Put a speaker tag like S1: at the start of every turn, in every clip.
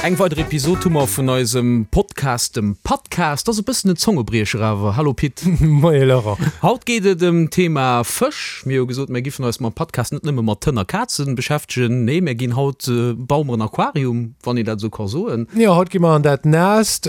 S1: Eng weider Episod hu mer vun eisem Podcast, dem Pattcast. Ass e bëssen en Zongebriecher awer. Hallo Pit.
S2: Moie Laurent.
S1: Haut geet et ëm d'Thema Fësch. Mir hu gesot, mir giffen eis mam Pattcast net nëmme mat Hënn a Kazen beschäftegen. Nee, mir ginn haut, baue mer en Aquarium, wann een dat esou ka soen.
S2: Jo, haut gi mer an dat Naasst.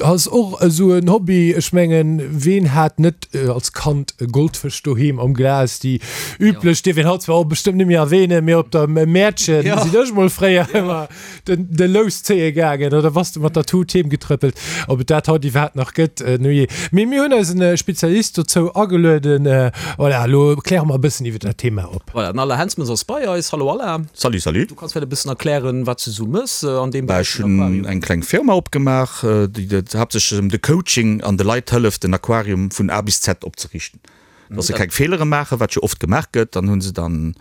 S2: Ass och esou en Hobby. Ech mengen, ween hat net als Kand e Goldfësch doheem am Glas? Déi üblech dierf een haut zwar och bestëmmt net méi erwähnen, mee op der Mäertchen sinn ech mol fréier ëmmer den de Lous zéie gaangen oder bass de mat der Tut heem getrëppelt. Ob et dat haut iwwerhaapt nach gëtt, nujee. Mee mir hunn eisen Spezialist dozou agelueden. Voilà, elo kläre mer e bëssen iwwer dat Thema op.
S1: Voilà, den Alain Hensmans ass bei eis. Hallo Alain.
S3: Salut, salut.
S1: Du kanns vläicht e bëssen erklären, wat s du sou mëss an deem
S3: Beräich vun Aquarium. Ech hunn eng kleng Firma opgemaach, déi haaptsächlech ëm de Coaching an de Leit hëlleft, den Aquarium vun A bis Z opzeriichten. Dass se keng Feelere maachen, wat jo oft gemaach gëtt. Dann hu se dann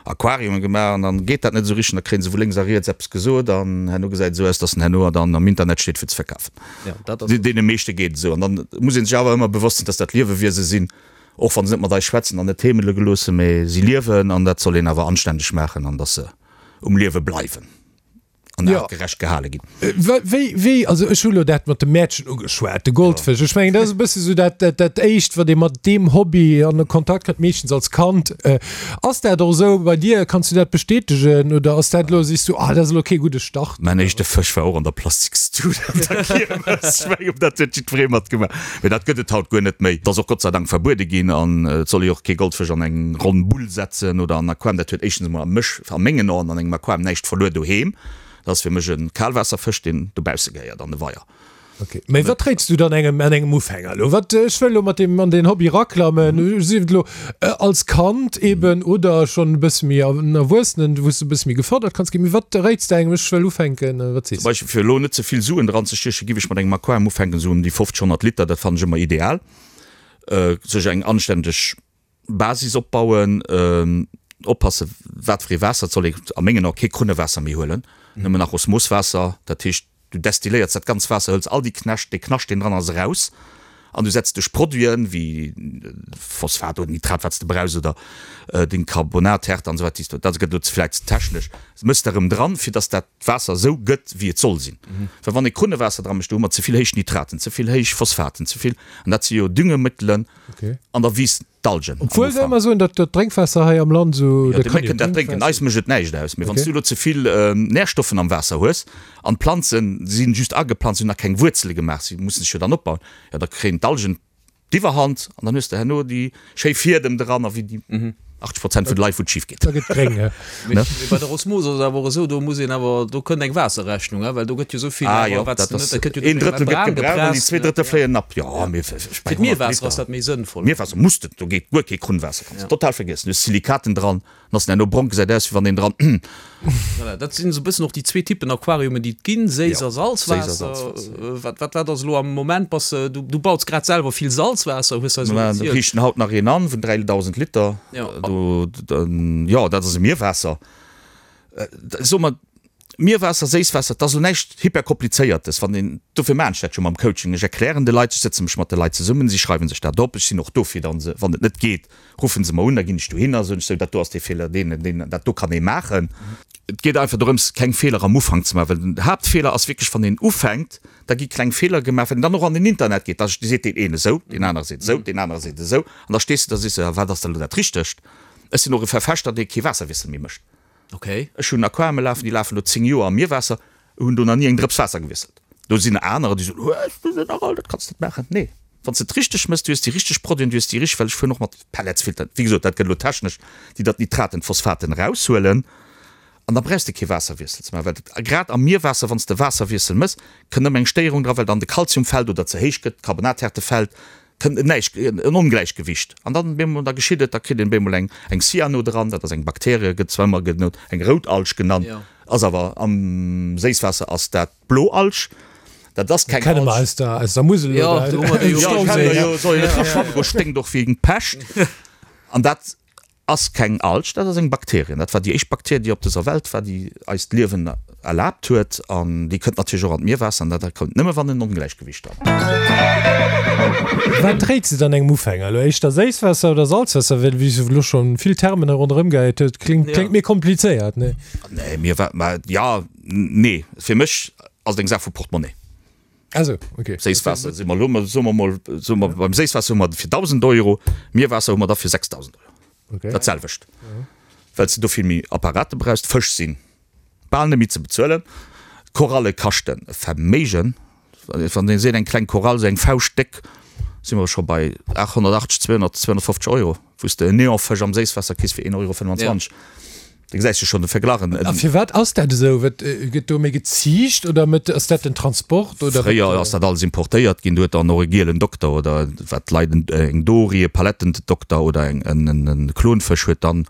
S3: Aquariume gemaach an dann geet dat net esou richteg. Da kréie se vu lénks a riets eppes gesot an herno gesäit et esou aus, dass en herno dann am Internet steet fir ze verkafen. Deene meeschte geet et esou. An dann muss ee sech awer ëmmer bewosst sinn, dass dat Liewewiese sinn, och wa se net mat eis schwätzen an net heemele geloossen, mee si liewen an dat soll een awer anstänneg maachen an dass se um Liewe bleiwen. an ja. artgerecht gehale ginn.
S2: Äh, wéi, wéi, also ech hu lo dat mat dem Mäertchen ugeschwat, de Goldfësch. Ech mengen, dat ass e bësse sou dat, dat, dat éischt, wat ee mat deem Hobby an de Kontakt kënnt, meeschtens als Kand. Äh, ass dat och esou bei dir? Kanns du dat bestätegen oder ass dat lo, sees du, ah, dat ass elo kee gudde Start?
S3: Mäin éischte Fësch war och an der Plastikstut op der Kiermes. Ech mengen, dat huet jiddweree matgemaach. Mee dat gëtt et haut guer net méi. Dat ass och Gott sei Dank verbuede ginn an et soll ee och kee Goldfësch an eng ronn Bull setzen oder an en Aquarium. Dat huet éischtens emol a mech, a mengen Aen an engem Aquarium näischt verluer doheem. Dat ass fir mech e Kalwaasserfësch, deen dobausse gehéiert an de Weier.
S2: Ok, mee wat réits du dann engem an engem Ufänger elo? Wat, ech wëll elo mat deem an deen Hobby raklammen, sief et elo als Kand eben oder schonn e bësse méi en Erwuessenen, wou s de e bësse méi gefërdert kanns ginn. Mee wat réits de engem, ech wëll ufänken, wat sees
S3: de? Zum Beispill, fir elo net ze vill Suen dranzestiechen, giff ech mat engem Aquarium ufänken, esou ëm déi 50, 100 Liter, dat fannen ech ëmmer ideal. Sech eng anständeg Basis opbauen, oppassen wat fir ee Waasser, et soll ee a mengen Ae kee Krunnewaasser méi huelen, nëmmen nach Osmoswaasser, dat heescht du destilléiers dat ganz Waasser, hëls all déi Knäscht, dee Knascht deen dran ass eraus an du setz duerch Produiten wéi Phosphat oder Nitrat wat s de brauchs oder deng Carbonathärte an esou weider, déi s dat gëtt elo vläicht ze technesch, mëss de erëm dran fir dass dat Waasser esou gëtt wéi et soll sinn. Well wann ee Krunnewaasser dra mécht, do hu mer ze vill héich Nitraten, ze vill héich Phosphaten, ze vill, an dat si jo Düngemëttelen,
S2: Okay.
S3: An der Wiss d'Algen.
S2: Obwuel se ëmmer soen, datt dat Drénkwaasser hei am Land esou.
S3: Jo, déi Mécken dat drénken. Eis mécht et näischt aus. Mee wann s du elo ze vill Närstoffen am Waasser hues an d'Planzen si just ageplanzt, si hunn nach keng Wuerzele gemaach, si mussen sech jo dann opbauen, jo da kréien d'Algen d'Iwwerhand an dann hues de herno déi schéi Fiedem dran a wéi déi 80 Prozent vun de Leit, wou et schif geet.
S2: Da gëtt gréng,
S1: he. Mee bei der Osmose ass et awer och esou, do muss een awer, do kënnt eng Waasserrechnung, he, well do gëtt jo esou vill
S3: Ah jo, dat ass, een Drëttel gëtt gebraucht an déi zwee Drëttel fléien ab. Jo, mee
S1: ech bei 100 Liter. Fir d'Mierwaasser ass dat méi sënnvoll.
S3: Mierwaasser muss de, do geet guer kee Krunnwaasser, kanns de total vergiessen. Du hues Silikaten dran, dann ass en herno brong, gesäit aus wéi wann een dran.
S1: Voilà, dat sinn esou e bëssen och déi zwee Typen Aquariumen, déi et ginn, Séiss a Salzwaasser. Wat, wat, wat ass elo am Moment? Bass de, du, du baus grad selwer vill Salzwaasser, hues eis elo
S3: erzielt. Mir riichten haut nach een an vun 3.000 Liter. Do, jo, dat ass e Mierwaasser. Soe mer, Mierwaasser, Séisswaasser, dat ass elo näischt hyperkomplizéiertes. Wann een, dofir maachen ech dat jo mam Coaching, ech erklären de Leit, ech sëtze mech mat de Leit zesummen, si schreiwe sech dat op, ech sinn och do fir dann se, wann et net geet, Ruffen se mer un, da ginn ech dohinner, soen ech, sou, dat do ass dee Feeler, deen an deen, dat do kann ee maachen. Et geet einfach dorëms, keng Feeler am Ufank ze maachen, well den Haaptfeeler ass wierklech, wann een ufänkt, da gi kleng Feeler gemaach, wann een dann och an den Internet geet, da seet deen een esou, deen anere seet esou, deen anere seet esou, an da stees de da, sees de, wat ass da elo dat Richtegt? Ech sinn och e Verfechter, dee kee Waasserwiessel méi mécht. Ech hunn Aquariume lafen, déi lafen elo 10 Joer am Mierwaasser, hunn do nach ni eng Drëps Waasser gewiesselt. Do sinn anerer, déi soen, Hues du se nach all, dat kanns de net maachen. Nee, wann s de et richteg méchs, du hues déi richteg Produiten, du hues déi richteg, well ech fueren och mat Pelletsfiltern, wéi gesot, dat gëtt elo technesch, déi dat Nitraten, d'Phosphaten eraushuelen an da brauchs de kee Waasserwiessel ze maachen, well grad am Mierwaasser, wann s de Waasserwiessel méchs, kënnt ëmmer eng Stéierung dra, well dann de Kalzium fält oder ze héich gëtt, d'Carbonathärte fält, kënnt en Näischt, en Ongläichgewicht an dann bemol, da geschitt et, da kritt een bemol eng eng Cyano dran, dat ass eng Bakterie, gëtt zwar ëmmer genannt eng Routalg genannt, ass awer am Séisswaasser ass dat d'Bloalg, dat ass keng
S2: Kenne mer
S3: Alg.
S2: aus der aus der Musel
S1: oder
S3: Jo, kennen mer jo, soll een net dra schwammen goen, sténkt och wéi eng Pescht an dat Ass keng Alg, dat ass eng Bakterien. Dat war déi éischt Bakterie, déi op dëser Welt war, déi eis d'Liewen erlaabt huet. An déi kënnt natierlech och an d'Mierwaasser. An dat kënnt nëmme, wann en Ongläichgewicht ass.
S2: Wat réits de dann engem Ufänger elo? Éischter Séisswaasser oder Salzwaasser? Well wéi s du elo scho vill Termen hei ronderëm gehäit hues, kléngt, kléngt mir komplizéiert, nee?
S3: Nee, mir, ma jo, nee. Fir mech. Ass et eng Saach vu Portemonnaie.
S2: Also, okay.
S3: Séisswaasser si mer elo, soe mer mol, soe mer beim Séisswaasser hu mer fir 1.000 Euro, Mierwaasser hu mer da fir 6.000 Euro.
S2: Okay.
S3: Dat selwecht. Well s de do vill méi Apparate brauchs. D'Fësch si bal net méi ze bezuelen. D'Koralle kaschten e Verméigen. Wann ee seet, eng kleng Korall, esou eng Fauscht déck, si mer scho bei 880, 200, 250 Euro, wou s de en Neonfësch am Séisswaasser kriss fir 1,25 Euro. Da gesäis de schonn de Verglach.
S2: A firwat ass dat esou? Wat gëtt do méi geziicht oder met ass dat den Transport oder?
S3: Fréier ass dat alles importéiert ginn. Do huet dann och e gielen Dokter oder wat d'Leit eng Dory, e Palettendokter oder eng en Klonfësch huet dann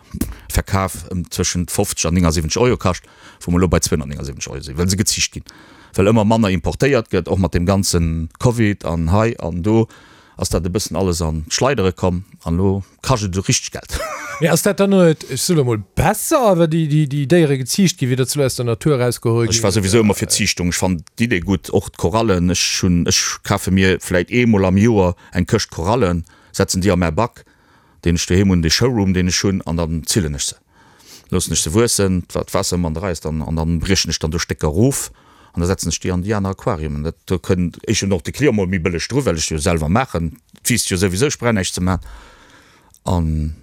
S3: verkaf ëm zwëschent 50 an 79 Euro kascht, wou mer elo bei 279 Euro sinn, well se geziicht ginn, well ëmmer manner importéiert gëtt, och mat deem ganze Covid an hei an do ass dat e bëssen alles an d'Schleidere komm an elo kascht et esou richteg Geld.
S2: Mee ass dat dann net, ech soe lo mol, besser, wa déi Déiere geziicht ginn, wéi datt se lo aus der Natur erausgeholl
S3: ginn? Ech war souwisou ëmmer fir Ziichtung. Ech fannen d'Idee gutt, och d'Korallen. Ech hunn, ech kafe mir vläit eemol am Joer eng Këscht Korallen, setzen déi a mäi Bac, deen ech doheem hunn, dee Showroom, deen ech hunn, an dann zillen ech se. Loossen ech se wuessen, d'Waasser ëmmer an der Rei ass dann, an dann briechen ech dann do Stécker erof an da setzen ech déi an déi aner Aquariumen. Dat, do kënnt éischtens och de Client mol méi bëlleg dru, well ech jo selwer maachen. Et wiisst jo souwisou, ech brauch näischt ze maachen. An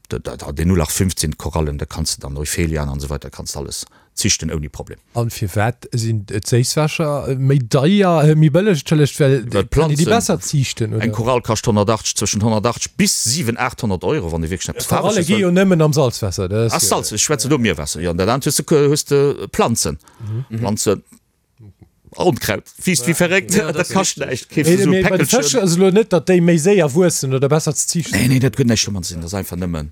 S3: deen 0815 Korallen, da kanns de dann Euphelian an esou weider, kanns de alles zichten ouni Problem.
S2: An firwat sinn d'Séisswässer méi deier, méi bëlleg, entschëllegt, well
S3: kann een déi besser ziichten, oder? Eng Korall kascht 180, zwëschen 180 bis 7, 800 Euro, wann ee wierklech
S2: eppes Faarweges wëll. Koralle gi jo nëmmen am Salzwaasser,
S3: dat ass jo. Ah, Salz, ech schwätzen do Mierwaasser, jo. An dat anert hues de, hues de Planzen, Planzen, Onkraut wiisst wéi verréckt, dat kascht näischt, keefs de sou e
S2: Mee bei de Fësch Päckelchen. ass elo net, datt déi méi séier wuessen oder besser ze ziichten
S3: Nee, nee, dat huet näischt domat ze dinn, dat ass einfach nëmmen.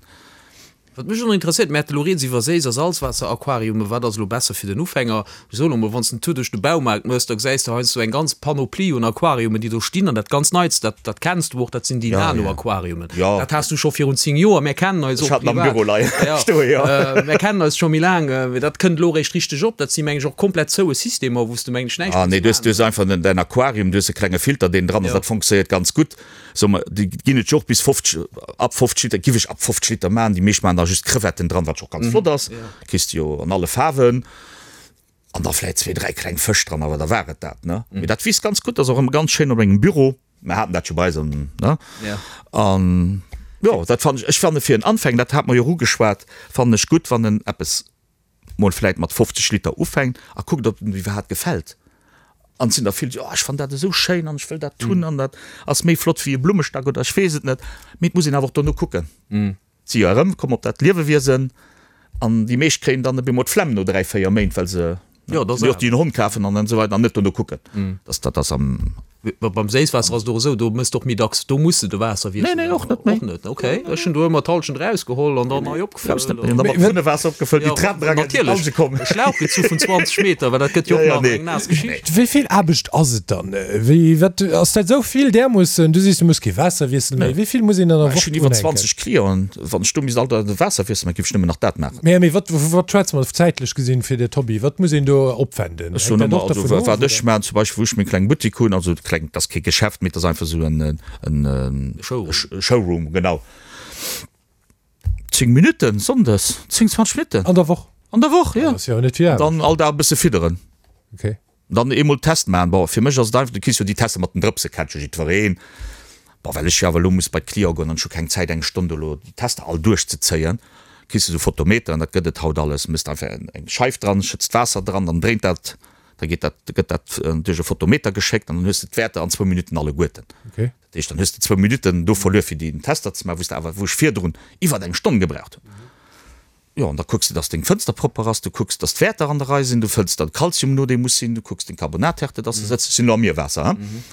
S1: Wat mech och nach interesséiert, mir hate elo rieds iwwer Séiss a Salzwaasser-Aquariumen, wat ass elo besser fir den Ufänger? Ech soen emol, wann s de en Tour duerch de Baumaart méchs, da gesäis de heiansdo eng ganz Panoplie un Aquariumen, déi do stinn. An dat ganz Neitst, dat, dat kenns du och, dat sinn déi Nano-Aquariumen. Dat has du scho virun 10 Joer. Mär kennen eis och privat. Mär kennen eis scho méi laang. Mee dat kënnt elo eréischt richteg op. Dat si meng ech och komplett zoue Systemer, wou s de meng ech näischt
S3: muss maachen. Du hues einfach däin Aquarium, du hues e klenge Filter, deen dran ass. Dat fonctionnéiert ganz gutt. Soe mer, déi ginn et jo och bis 50, ab 50 Liter, giff ech ab 50 Liter maachen. Déi meescht maachen da just Crevetten dran, wat jo och ganz flott ass. Kriss de jo an alle Faarwen. An da vläit zwee, dräi kleng Fësch dran, awer da war et dat, ne? Mee dat wiisst ganz gutt, ass och ëmmer ganz schéin op engem Büro. Mer haten dat jo bei eis an, ne? An jo, dat fannen ech, ech fanne fir en Anfänger, dat hate mer jo och ugeschwat, fannen ech gutt, wann en eppes mol vläit mat 50 Liter ufänkt a kuckt, ob em iwwerhaapt gefält. An et sinn der vill, déi, oh ech fannen dat esou schéin an ech wëll dat hunn an dat ass méi flott wéi e Blummestack oder ech weess et net. Mee et muss een awer och dono kucken. Et si jo erëm komm op dat Liewewiesen an déi meescht kréien dann op eemol d'Flemm no 3, 4 Méint, well se jo och déi en Hond kafen an esou weider an net dono kucken. Dat ass am.
S1: Beim Séisswaasser ass et och esou, do mëss de och méi dacks, do muss de de Waasser
S3: wiesselen. Nee, nee, och net méi.
S1: Och net, okay. Ech hunn do ëmmer d'Hallschent erausgeholl an dann nei
S3: opgefëllt. Brauchs net méi. An da mat Krunnewaasser opgefëllt, déi Trap era ginn, déi Alge
S1: kommen. Natierlech, e Schlauch gezu vun 20 Meter, well dat gëtt jo och nach eng naass
S2: Geschicht. Wéi vill Aarbecht ass et dann? Wéi, wat, ass dat esou vill därmoossen? Du sees, du muss kee Waasser wiesselen méi. Wéi vill muss een dann an der
S3: Woch Ech hunn iwwer drunhänken? 20 Clienten. Wann ech do misst all Dag de Waasser wiesselen, da giff ech nëmmen nach dat maachen.
S2: Mee, mee wat, vu wat schwätze mer zäitlech gesinn fir dat Hobby? Wat muss een do opwenden?
S3: Ech soen ëmmer, also wat ech maachen, zum Beispill wou ech meng kleng Buttik hunn, also kleng, dat ass kee Geschäft, mee dat ass einfach esou en Showroom, genau. 10 Minutten sonndes, 10, 20 Minutten.
S2: An der Woch?
S3: An der Woch, jo. Dat ass jo net vill Aarbecht. Dann all Dag e bësse fidderen.
S2: Okay.
S3: Dann eemol Test maachen. Bon, fir mech ass et einfach, du kriss jo déi Tester mat den Drëpse, kennt jo jiddwereen. Bon, well ech jo awer elo muss bei d'Cliente goen an ech hu keng Zäit eng Stonn do elo déi Tester all duerchzezéien, kriss de esou Photometeren, dat gëtt et haut alles, méchs einfach eng Scheif dran, schëtts d'Waasser dran, dann dréint dat, da geet dat, gëtt dat duerch e Photometer geschéckt an dann hues de d'Wäerter an zwou Minutten alleguerten.
S2: Okay.
S3: Dat heescht, dann hues de zwou Minutten do verluer fir déi Tester ze maachen, wou s de awer, wou ech virdrun iwwert eng Stonn gebraucht hunn. Jo, an da kucks de, dass deng Fënster propper ass, du kucks, dass d'Wäerter an der Rei sinn, du fëlls dann Kalzium no, dee muss sinn, du kucks deng Carbonathärte, dass se sëtzt. Ech sinn elo am Mierwaasser, hein.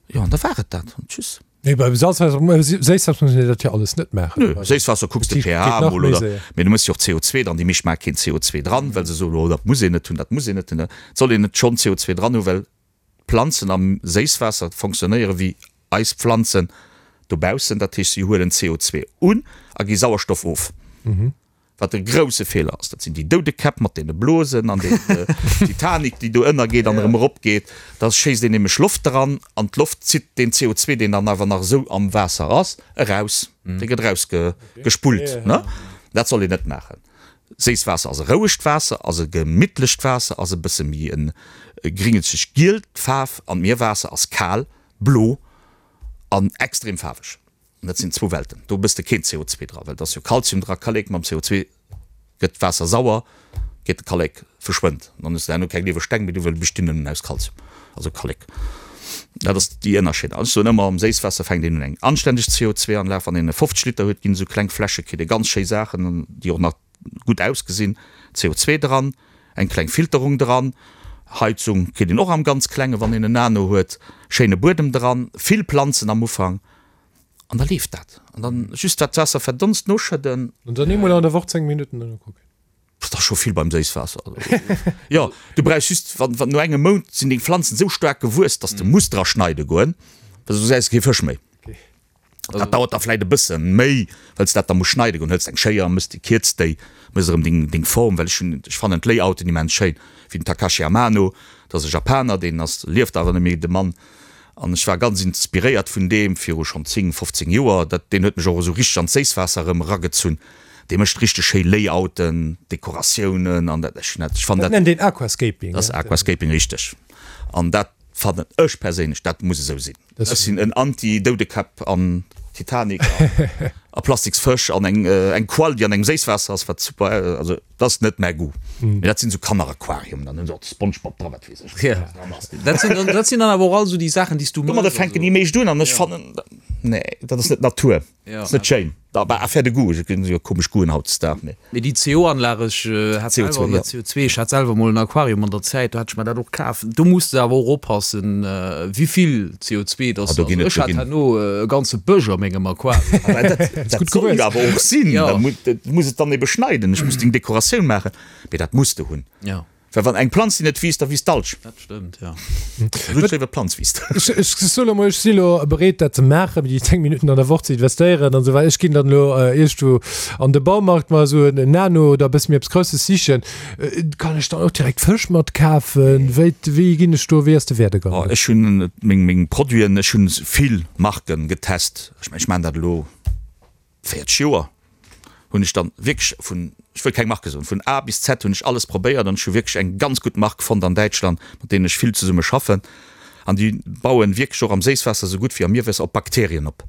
S3: Jo, an da war et dat. An tschüss.
S2: Nee, beim Salzwaasser, Séisswaasser muss een dat jo alles net maachen.
S3: Nö, Séisswaasser kucks de pH emol, oder? Mee du mëss jo och CO2 dran. Déi meescht maache keen CO2 dran, well se soen, oh, dat muss een net hunn, dat muss een net hunn. Et soll een net schonn CO2 dran hunn, well d'Planzen am Séisswaasser fonctionnéiere wéi eis Pflanzen dobaussen, dat heescht si huelen CO2 un a gi Sauerstoff of, wat e grousse Feeler ass. Dat sinn déi Doudekäpp mat deene Blosen an déi Titanic, déi do ënnergeet an erëm eropgeet. Da schéisst een nämlech Loft dran an d'Loft zitt deen CO2, deen dann awer nach esou am Waasser ass, eraus. Dee gëtt erausgespullt. Dat soll een net maachen. Séisswaasser ass e rouegt Waasser, ass e gemittlecht Waasser, ass e bësse méi e gringelzeg gielt Faarf an d'Mierwaasser ass kal, blo an extrem faarweg. An dat sinn zwou Welten. Do bëss de keen CO2 dra, well et ass jo Kalzium dra, Kallek, mam CO2 gëtt d'Waasser sauer, geet de Kallek verschwënnt. An dann hues de herno keng lieweg Steng méi do, well déi bestinn nëmmen aus Kalzium, also Kallek. Dat ass déi Ënnerscheed. An ech soen ëmmer, am Séisswaasser fänkt een un eng anständeg CO2-Anlag, wann een e 50 Liter huet, ginn esou kleng Fläsche, kritt ee ganz schéi Saachen, déi och nach gutt ausgesinn, CO2 dran, eng kleng Filterung dran, Heizung kritt een och am ganz Klenge wann een en Nano huet, schéine Buedem dran, vill Planzen am Ufank an da leeft dat. An dann just wat d'Waasser verdonst noschëdden.
S2: An dann eemol an der Woch 10 Minutten drënner kucken.
S3: Dat ass scho vill beim Séisswaasser. Jo, du brauchs just, wann, wann no engem Mount sinn deng Pflanzen esou staark gewuess, dass de muss dra schneide goen, well soss gesäis de kee Fësch méi. Dat dauert da vläit e bësse méi, well s de dat da muss schneide goen. Hëls eng Schéier, mëss déi, kierz déi, mëss erëm deng, deng Form, well ech hunn, ech fannen d'Layouten immens schéin, wéi den Takashi Amano, dat ass e Japaner, deen ass, lieft awer net méi, de Mann, an ech war ganz inspiréiert vun deem viru schonn 10, 15 Joer. Dat, deen huet mech och esou richteg an d'Séisswaasser erëm eragezunn. Dee mécht richteg schéi Layouten, Dekoratiounen an dat, ech hunn dat, ech fannen
S2: Dat dat. nennt een Aquascaping,
S3: Dat ass Aquascaping, richteg. An dat fannen ech perséinlech, dat muss esou sinn. Ech sinn en Anti-Doudekäpp an Titanic a plastiks Fësch an eng eng Qual déi an engem Séisswaasser ass, wat super, also dat ass net mäi Goût. Mee dat sinn esou Kanneraquariumen, dann hunn se och de Spongebob dra, wat weess ech, wat dran
S1: ass. Dat sinn dann, dat sinn dann awer och all esou déi Saachen, déi s du
S3: mëss. Domadder fänken déi meescht un an ech fannen, nee, dat ass net Natur. Ass net schéin. Bah, affaire de goût, et ginn jo komesch Goûten hautdesdaags,
S1: mee. Mee déi CO-Anlag, ech hat selwer, oder CO2, ech hat selwer mol en Aquarium an der Zäit, do hat ech mer dat och kaf. Do muss de awer och oppassen, wéivill CO2 dass de, also ech hat herno e ganze Bësch a mengem Aquarium.
S3: Dat soll jo awer och sinn, da muss et dann ebe schneiden, ech muss deng Dekoratioun maachen, mee dat muss de hunn. Well wann eng Planz déi net wiisst, da wiisst d'Alg.
S1: Dat stëmmt, jo.
S3: Gutt schéi, wa d'Planz wiisst.
S2: Ech soe lo mol, ech si lo bereet dat ze maachen, déi 10 Minutten an der Woch ze investéieren an esou weider. Ech ginn dann elo iergendwou an de Baumarkt mer esou en Nano oder e bësse méi eppes Grousses sichen. Kann ech dann och direkt Fësch mat kafen? Wéi, wéi ginn ech do, wéi ass de Werdegang?
S3: Oh, ech hunn meng, meng Produiten, ech hunn vill Marken getest. Ech mengen, ech maachen dat elo 40 Joer hunn ech dann wierklech vun, ech wëll keng Marke soen, vun A bis Z hunn ech alles probéiert an ech hu wierklech eng ganz gutt Mark fonnt an Däitschland, mat deenen ech vill zesumme schaffen an déi bauen wierklech och am Séisswaasser esou gutt wéi am Mierwaasser op Bakterien op.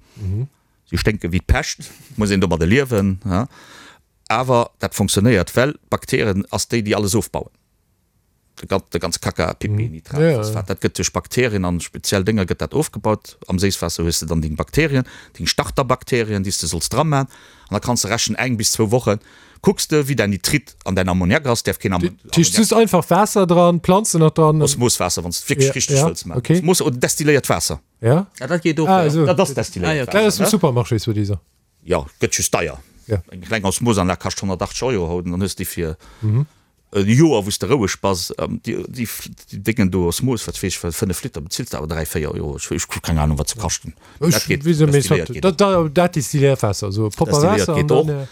S3: Si sténke wéi d'Pescht, muss een domadde liewen, awer dat fonctionnéiert, well d'Bakterien ass déi, déi alles ofbauen. De ganze Kaka, Pipi, Nitrat, Phosphat, dat gëtt duerch Bakterien an speziell Dénger gëtt dat ofgebaut. Am Séisswaasser hues de dann deng Bakterien, deng Starterbakterien, déi s de solls dra man. An da kanns de rechnen, eng bis zwou Woche kucks de, wéi däin Nitrit an däin Ammoniak ass. Däerf keen
S2: Ammoniak. Dat heescht just einfach Waasser dran, Planzen nach dran.
S3: Osmoswaasser, wann s de et wierklech richteg wëlls man. Osmos oder destilléiert Waasser.
S2: Ja.
S1: Ah, dat geet och, jo.
S3: Dat ass destilléiert
S2: Waasser. Dat ass vum Supermarché, soi-disant.
S3: Jo, gëtt just deier. Eng kleng Osmosanlag kascht 180 Euro haut an dann hues de déi fir E Joer wou s de roueg bass, déi Déngen do Osmos, wat weess ech, 5 Liter bezills de awer 3, 4 Euro, ech hu keng Ahnung wat se kaschten.
S2: Dat geet, destilléiert geet och. Dat destilléiert Waasser, esou
S3: propper Waasser an dann.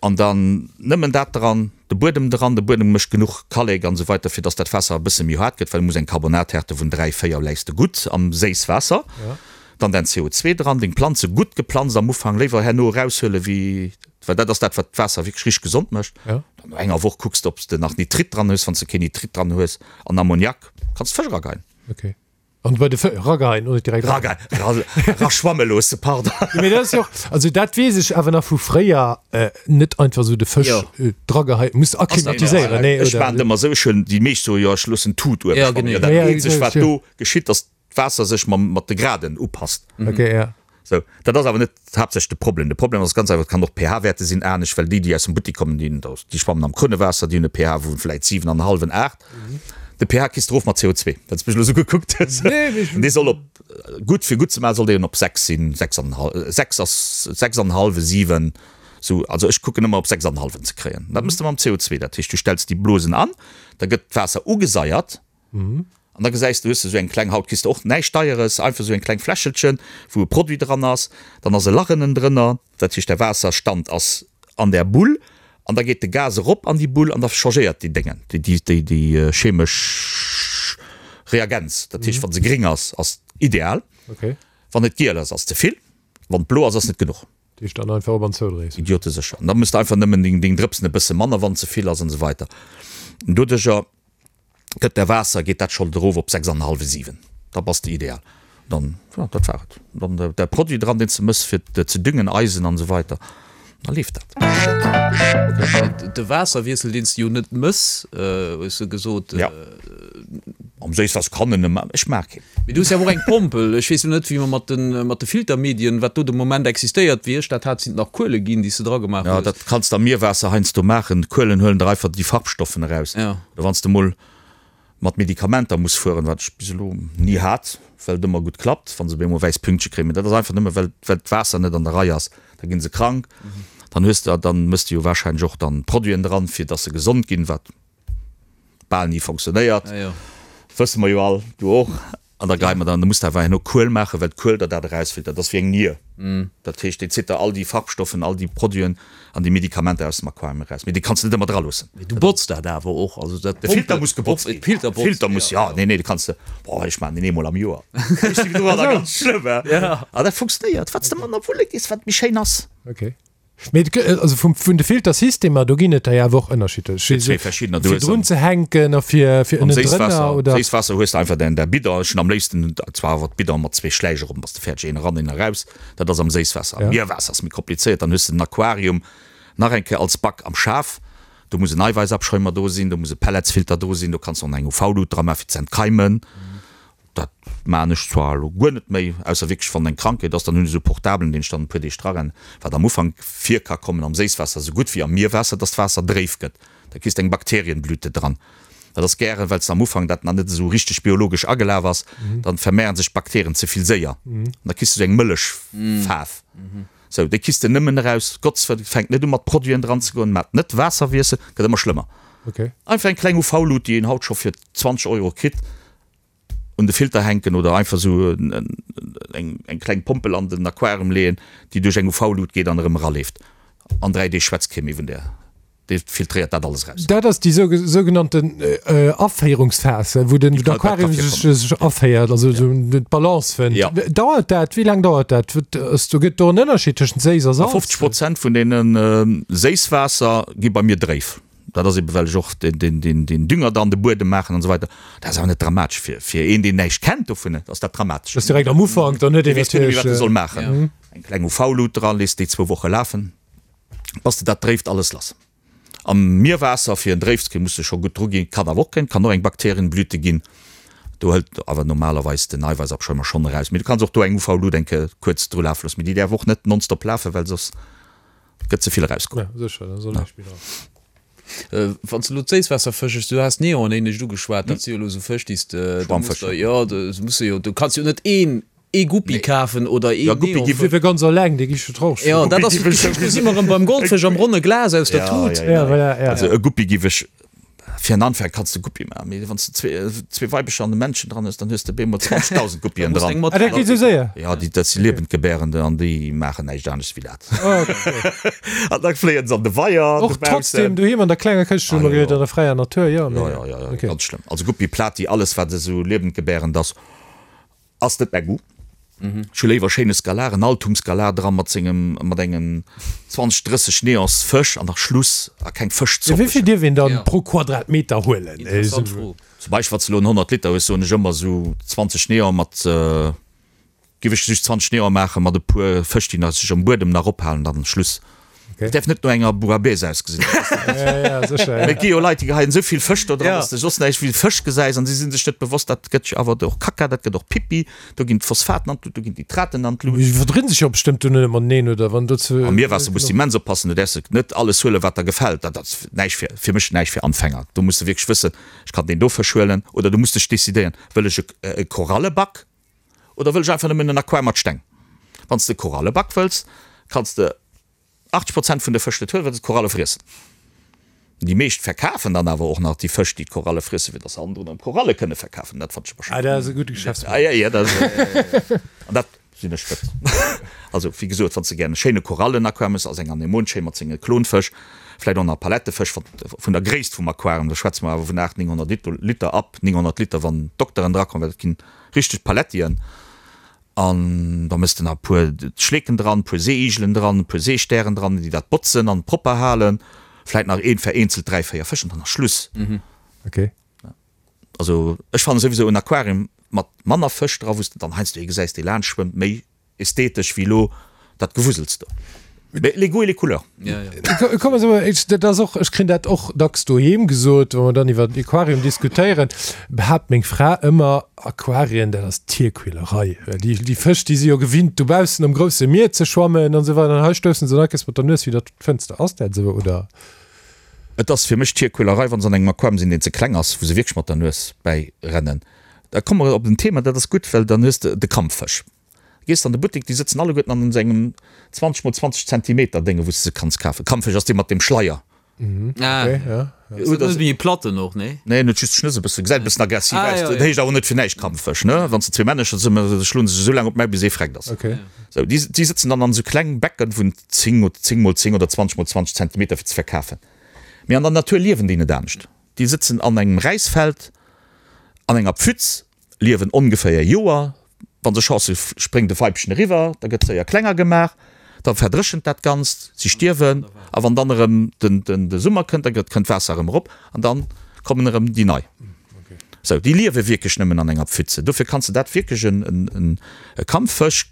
S3: An dann nëmmen dat dran, de Buedem dran, de Buedem mécht genuch Kallek an esou weiter fir dass dat Waasser e bësse méi haart gëtt, well e muss eng Carbonathärte vun 3, 4 läis de gutt am Séisswaasser. Dann däin CO2 dran, deng Planze gutt geplanzt am Ufank, léiwer herno eraushuele wéi, well dat ass dat wat d'Waasser wierklech richteg gesond mécht. Dann no enger Woch kucks de ob s de nach Nitrit dran hues, wann s de keen Nitrit dran hues an Ammoniak, kanns d'Fësch erageien.
S2: Ok. An bei de Fë-, rageien oder direkt
S3: ra-? Rageien, ra, raschwamme loosse, pardon.
S2: Jo, mee dat ass jo och, also dat weess ech awer nach vu fréier, net einfach esou de Fësch drageheien, muss akklimatiséieren, nee
S3: oder? Ech maachen et ëmmer esou, ech hunn, déi meescht soe jo ech loossen d'Tut uewe schwammen. Jo, dat eenzegt wat do geschitt ass, d'Waasser sech mam, mat de Graden upasst.
S2: Ok, ja.
S3: Sou, dat ass awer net haaptsächlech de Problem. De Problem ass ganz einfach, et kann och d'pH-Wäerte sinn anescht, well déi, déi aus dem Buttik kommen, déi, déi schwammen am Krunnewaasser, déi hunn e pH vu vläit 7 an e hallwen, 8. De pH kriss de erof mat CO2, well s de mech elo sou gekuckt hues. Dee soll op, gutt, fir gutt ze maachen, soll deen op 6 sinn, 6 an en hal-, 6 ass, 6 an en hallwe, 7, sou. Also ech kucken ëmmer op 6 an en hallwen ze kréien. Dat méchs de mam CO2. Dat heescht, du stells déi Blosen an, da gëtt d'Waasser ugesaiert, An da gesäis de, hues de esou eng kleng, haut kriss de och näischt Deieres, einfach esou eng kleng Fläschelchen, wou e Produit dran ass, dann ass e Lach ënnen drënner, dat heescht, der Waasserstand ass an där Bull an da geet de Gas erop an déi Bull an da changéiert déi Déngen, déi, déi, déi chemesch Reagenz. Dat heescht, wa se gréng ass, ass ideal, wann et giel ass, ass ze vill, wann et blo ass, ass net genuch.
S2: Déi ech dann einfach op an zoudréis.
S3: Idiotesécher. An da mëss de einfach nëmmen deng, deng Drëpsen e bësse manner, wann ze vill ass an esou weiter. An doduercher gëtt der Waasser, geet dat scho erof op 6 an e hallwe, 7. Da bass de ideal. Dann, jo, dat war et. Dann de Produit dran, deen s de mëss fir ze düngen, Eisen an esou weiter. Da leeft dat.
S1: De Waasserwiessel, deen s de jo net mëss, hues de gesot.
S3: Jo. Am Séisswaasser kann en e maachen. Ech maach keen.
S1: Mee du hues jo awer och eng Pompel. Ech weess elo net, wéi mer mat de, mat de Filtermedien, wat do de Moment existéiert. Wéi ech dat hat, sinn et nach Kuele ginn, déi s de dra gemaach
S3: hues. Jo, dat kanns de am Mierwaasser heiansdo maachen. D'Kuelen huelen der einfach déi Farbstoffen eraus.
S1: Jo.
S3: Oder wann s de mol mat Medikamenter muss fueren, wat ech bis elo ni hat, well et ëmmer gutt klappt, wa se op eemol wäiss Pünktche kréien. Mee dat ass einfach nëmme well, well d'Waasser net an der Rei ass. Da gi se krank. Dann hues de, dann mëss de jo warscheinlech och dann Produiten dran, fir dass se gesond ginn, wat bal ni fonctionnéiert. Wësse mer jo all, du och. An da geie mer dann, da muss de awer herno Kuel maachen, well d'Kuel der dat erausfiltert. Dat ass wéi eng Nier. Dat heescht, déi zitt der all déi Farbstoffen, all déi Produiten an déi Medikamenter aus dem Aquarium eraus. Mee déi kanns de net ëmmer draloossen.
S1: Mee du botz dat awer och. Also dat
S3: De Filter muss gebotzt ginn.
S1: Filter
S3: botzt, Filter muss, ja. Nee, nee, de kanns de, boah, ech maachen deen eemol am Joer. Ech si domadder ganz schlëmm, he. A dat funktionéiert. Wat s de manner wulle gees, wat méi schéin ass.
S2: Okay. Mee et gëtt, also vum, vun de Filtersystemer, do ginn et der jo awer och ënnerschiddlech.
S3: Fir zwee verschiddener.
S2: Fir drun ze hänken a fir, fir
S3: Am
S2: ënnendrënner,
S3: Séisswaasser,
S2: oder?
S3: Séisswaasser hues de einfach däin, däi Bidon. Ech hunn am léifsten zwar awer d'Bidon mat zwee Schläich erop, bass de fäerdeg, een eran, een eraus. Dat ass am Séisswaasser. Am
S2: Ja.
S3: Mierwaasser ass méi komplizéiert, dann hues de den Aquarium nach eng Kéier als Back am Schaf. Do muss en Eiwäissabschäumer do sinn, do muss e Pelletsfilter do sinn, do kanns de och nach eng UV-Lut dra maachen fir ze entkeimen. Dat maachen ech zwar elo guer net méi, ausser wierklech wann eng Krankheet ass, dann hunn ech esou e Portablen, deen ech dann e puer Deeg drarennen, wat am Ufank vir ka kommen am Séisswaasser esou gutt wéi am Mierwaasser, dass d'Waasser dréif gëtt, da kriss de eng Bakterienblüte dran. Dat ass gären, well s de am Ufank dat nach net esou richteg biologesch agelaf ass, dann vermehren sech d'Bakterien ze vill séier an da kriss de esou eng mëllech Faarf. Sou, déi kriss de nëmmen eraus, Gottswëll, fänk net u mat Produiten dran ze goen, maat net Waasserwiessel, gëtt ëmmer schlëmmer. Einfach eng kleng UV-Lut, déi een haut scho fir 20 Euro kritt, un de Filter hänken oder einfach sou eng eng kleng Pompel an den Aquarium leeën, déi duerch eng UV-Lut geet an erëm eraleeft. An 3 Deeg schwätzt kee méi vun där. Déi filtréiert dat alles eraus.
S2: Dat ass déi sougenannten Aféierungsphas, wou den Aquarium sech aféiert, also sou d'Balance fënnt. Dauert dat, wéi laang dauert dat? Do gëtt do en Ënnerscheed tëschent Séiss a Salz?
S3: 50 Prozent vun deene Séisswaasser gi bei mir dréif. Dat ass eben, well ech och den Dünger da an de Buedem maachen an esou weider. Dat ass awer net dramatesch. Fir fir een, deen näischt kennt dovun, ass dat dramatesch.
S2: Dat ass direkt am Ufank, dann huet een
S3: Dee weess guer net méi, wat e soll maachen. Eng kleng UV-Lut dran, léisst déi zwou Woche lafen, bass de dat dréift alles lass. Am Mierwaasser, fir en dréif ze kréien, muss de scho gutt dru ginn. Kann awer och kréien, kann och eng Bakterienblüte ginn. Do hëlt awer normalerweis den Eiwäissabschäumer schonn eraus. Mee du kanns och do eng UV-Lut eng Kéier kuerz dru lafe loossen. Mee déi däerf och net nonstop lafen, well soss Gëtt ze vill erausgeholl.
S2: Ja, sécher, da soll näischt méi dran.
S1: Wann s de elo d'Séisswaasserfësch, du has Neon éinescht ugeschwat, dat si jo elo esou Fësch, déi s de, do muss der, jo, do muss de jo, du kanns jo net een, ee Guppi kafen oder een
S3: Ja, Guppi
S1: Neonfësch.
S3: gi
S2: Fir ganz eleng, dee gi scho trauch.
S1: Jo, dat ass, do si mer erëm beim Goldfësch am ronne Glas aus der Tut.
S3: Ja, ja,
S2: Ja, voilà, ja.
S3: Also e Guppi giff ech Fir en Anfänger kanns de Guppie maachen, mee wann s de zwee Weibecher an e Männchen dran hues, dann hues de bemol 20.000 Guppien dran.
S2: Ah, dat geet esou séier?
S3: Jo, déi, dat si Liewendgebärende an déi maachen näischt anescht wéi dat. An da fléien se an de Weier
S2: Och
S3: dobaussen.
S2: trotzdem doheem an der klenger Këscht, hu mer gehéiert, an der fräier Natur, jo, mee.
S3: Jo, jo, jo,
S2: Okay.
S3: ganz schlëmm. Also Guppie, Plati, alles wat esou liewendgebärend ass, Ass net mäi Goût. Ech hu léiwer schéine Skalar, en Altum-Skalar dran mat sengem, mat engem 20, 30 Neons Fësch an da Schluss a keng Fëschzopp.
S2: Wéi vill dierf een dann pro Quadratmeter huelen?
S1: Interessant Fro.
S3: Zum Beispill wann s de elo en 100 Liter hues, soen ech ëmmer esou 20 Neon mat, giff ech just 20 Neon maachen mat e puer Fësch déi nach sech am Buedem nach ophalen, dann Schluss. Et däerf net no enger Bouillabaisse ausgesinn. Mee et gi jo Leit, déi geheien esou vill Fësch do dran, dass de soss näischt wéi Fësch gesäis an si si sech net bewosst, dat gëtt jo awer och Kacka, dat gëtt och Pippi, do ginn d'Phosphaten an d'Lut, do ginn d'Nitraten an d'Lut.
S2: Déi verdrinn sech jo bestëmmt duerno net mateneen, oder? Wann do ze.
S3: Am Mierwaasser muss de immens oppassen, du däerfs net alles huelen, wat der gefält. Dat ass näischt fir, fir mech näischt fir Anfänger. Do muss de wierklech wëssen, ech kann deen do Fësch huelen, oder du muss dech decidéieren, wëll ech e Koralleback oder wëll ech einfach nëmmen en Aquarium mat Steng? Wann s de Koralleback wëlls, kanns de 80 Prozent vun de Fësch net huelen, well se d'Koralle friessen. Déi meescht verkafen dann awer och nach déi Fësch, déi d'Koralle friessen, fir dass se hannendrun erëm Koralle kënne verkafen. Dat fannen ech awer
S2: Ah, dat ass e gudde Geschäftsmodell.
S3: Ah, ja, ja, dat ass, an dat sinn ech net. Also, wéi gesot, wann s de gären e schéine Korallenaquarium hues, ass eng Anemon schéin mat senge Klonfësch, vläicht och nach Palettefësch, wat vun der Gréisst vum Aquarium, do schwätze mer awer vun 800, 900 Liter, ab 900 Liter, wann d'Dokteren drakommen, well dat ginn richteg Palettien. An da mëss de nach e puer Schleeken dran, e puer Seeigelen dran, e puer Seestären dran, déi dat botzen an propper halen. Vläit nach een vereenzelt 3, 4 Fësch an dann ass Schluss.
S2: Okay.
S3: Also ech fannen souwisou en Aquarium mat manner Fësch dra, wou s de dann heiansdo ee gesäis, dee laanscht schwëmmt, méi ästhetesch wéi elo dat Gewusels do. Mais les goûts et les couleurs.
S2: Komm also, dat ass och, ech kréien dat och dacks doheem gesot, wa mer dann iwwer Aquarium diskutéieren, behaapt meng Fra ëmmer, Aquarien, dat ass Tierquälerei. Déi, déi Fësch, déi si jo gewinnt dobaussen am grousse Mier ze schwammen an esou weider, an hei stoussen se dann mat der Nues widder d'Fënster. Ass dat esou, oder?
S3: Et ass fir mech Tierquälerei, wa se an engem Aquarium sinn, deen ze kleng ass, wou se wierklech mat der Nues bäi rennen. Da komme mer op en Thema, dat ass gutt, well dann hues de de Kampffësch. Gees de an de Buttek, déi sëtzen alleguerten an esou engem 20 mol 20 Zentimeter Dénge wou s de se kanns kafen. Kampffisch ass dee mat dem Schleier.
S1: Ah,
S2: Okay, ja.
S1: Ass dat net méi e Platten och, nee?
S3: Nee, en huet just d'Schnëss e bëssen, gesäit e bëssen aggressiv
S1: Ah,
S3: aus.
S1: ja,
S3: Dat
S1: ja.
S3: heescht awer net fir näischt Kampffisch, ne? Wann s de zwee Männecher sinn, da schloen se sech esou laang op d'Maul, bis ee freckt ass.
S2: Okay.
S3: Sou, déi, déi sëtzen dann an esou kleng Becken vun 10 oder 10 mol 10 oder 20 mol 20 Zentimeter fir ze verkafen. Mee an der Natur liewen déi net anescht. Déi sëtzen an engem Räisfeld, an enger Pfütz, liewen ongeféier Joer. Wa se Chance hu spréngt e Weibchen eriwwer, da gëtt séier klenger gemaach, da verdréchent dat Ganzt, si stierwen a wann dann erëm de Summer kënnt, da gëtt kënnt d'Waasser erëm erop an da kommen erëm déi nei. Sou, déi liewe wierklech nëmmen an enger Pfütze. Dofir kanns de dat wierklech en e Kampffësch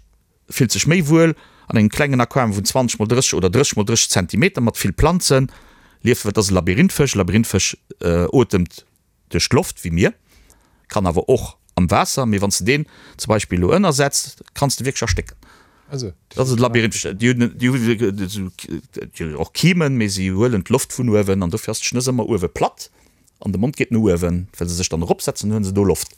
S3: fillt sech méi wuel an engem klengen Aquarium vun 20 mol 30 oder 30 mol 30 Zentimeter mat vill Planzen lieft, well et ass e Labyrinthfësch. E Labyrinthfësch otemt duerch d'Loft wéi mir, kann awer och am Waasser, mee wann s de deen zum Beispill elo ënnersetz, kanns de wierklech erstécken. Dat ass e Labyrinth, déi hunn déi hunn och Kimen, mee si huelen d'Loft vun uewen an dofir ass d'Schnëss ëmmer uewe platt an de Mond geet no uewen, well se sech dann eropsetzen, hunn se do Loft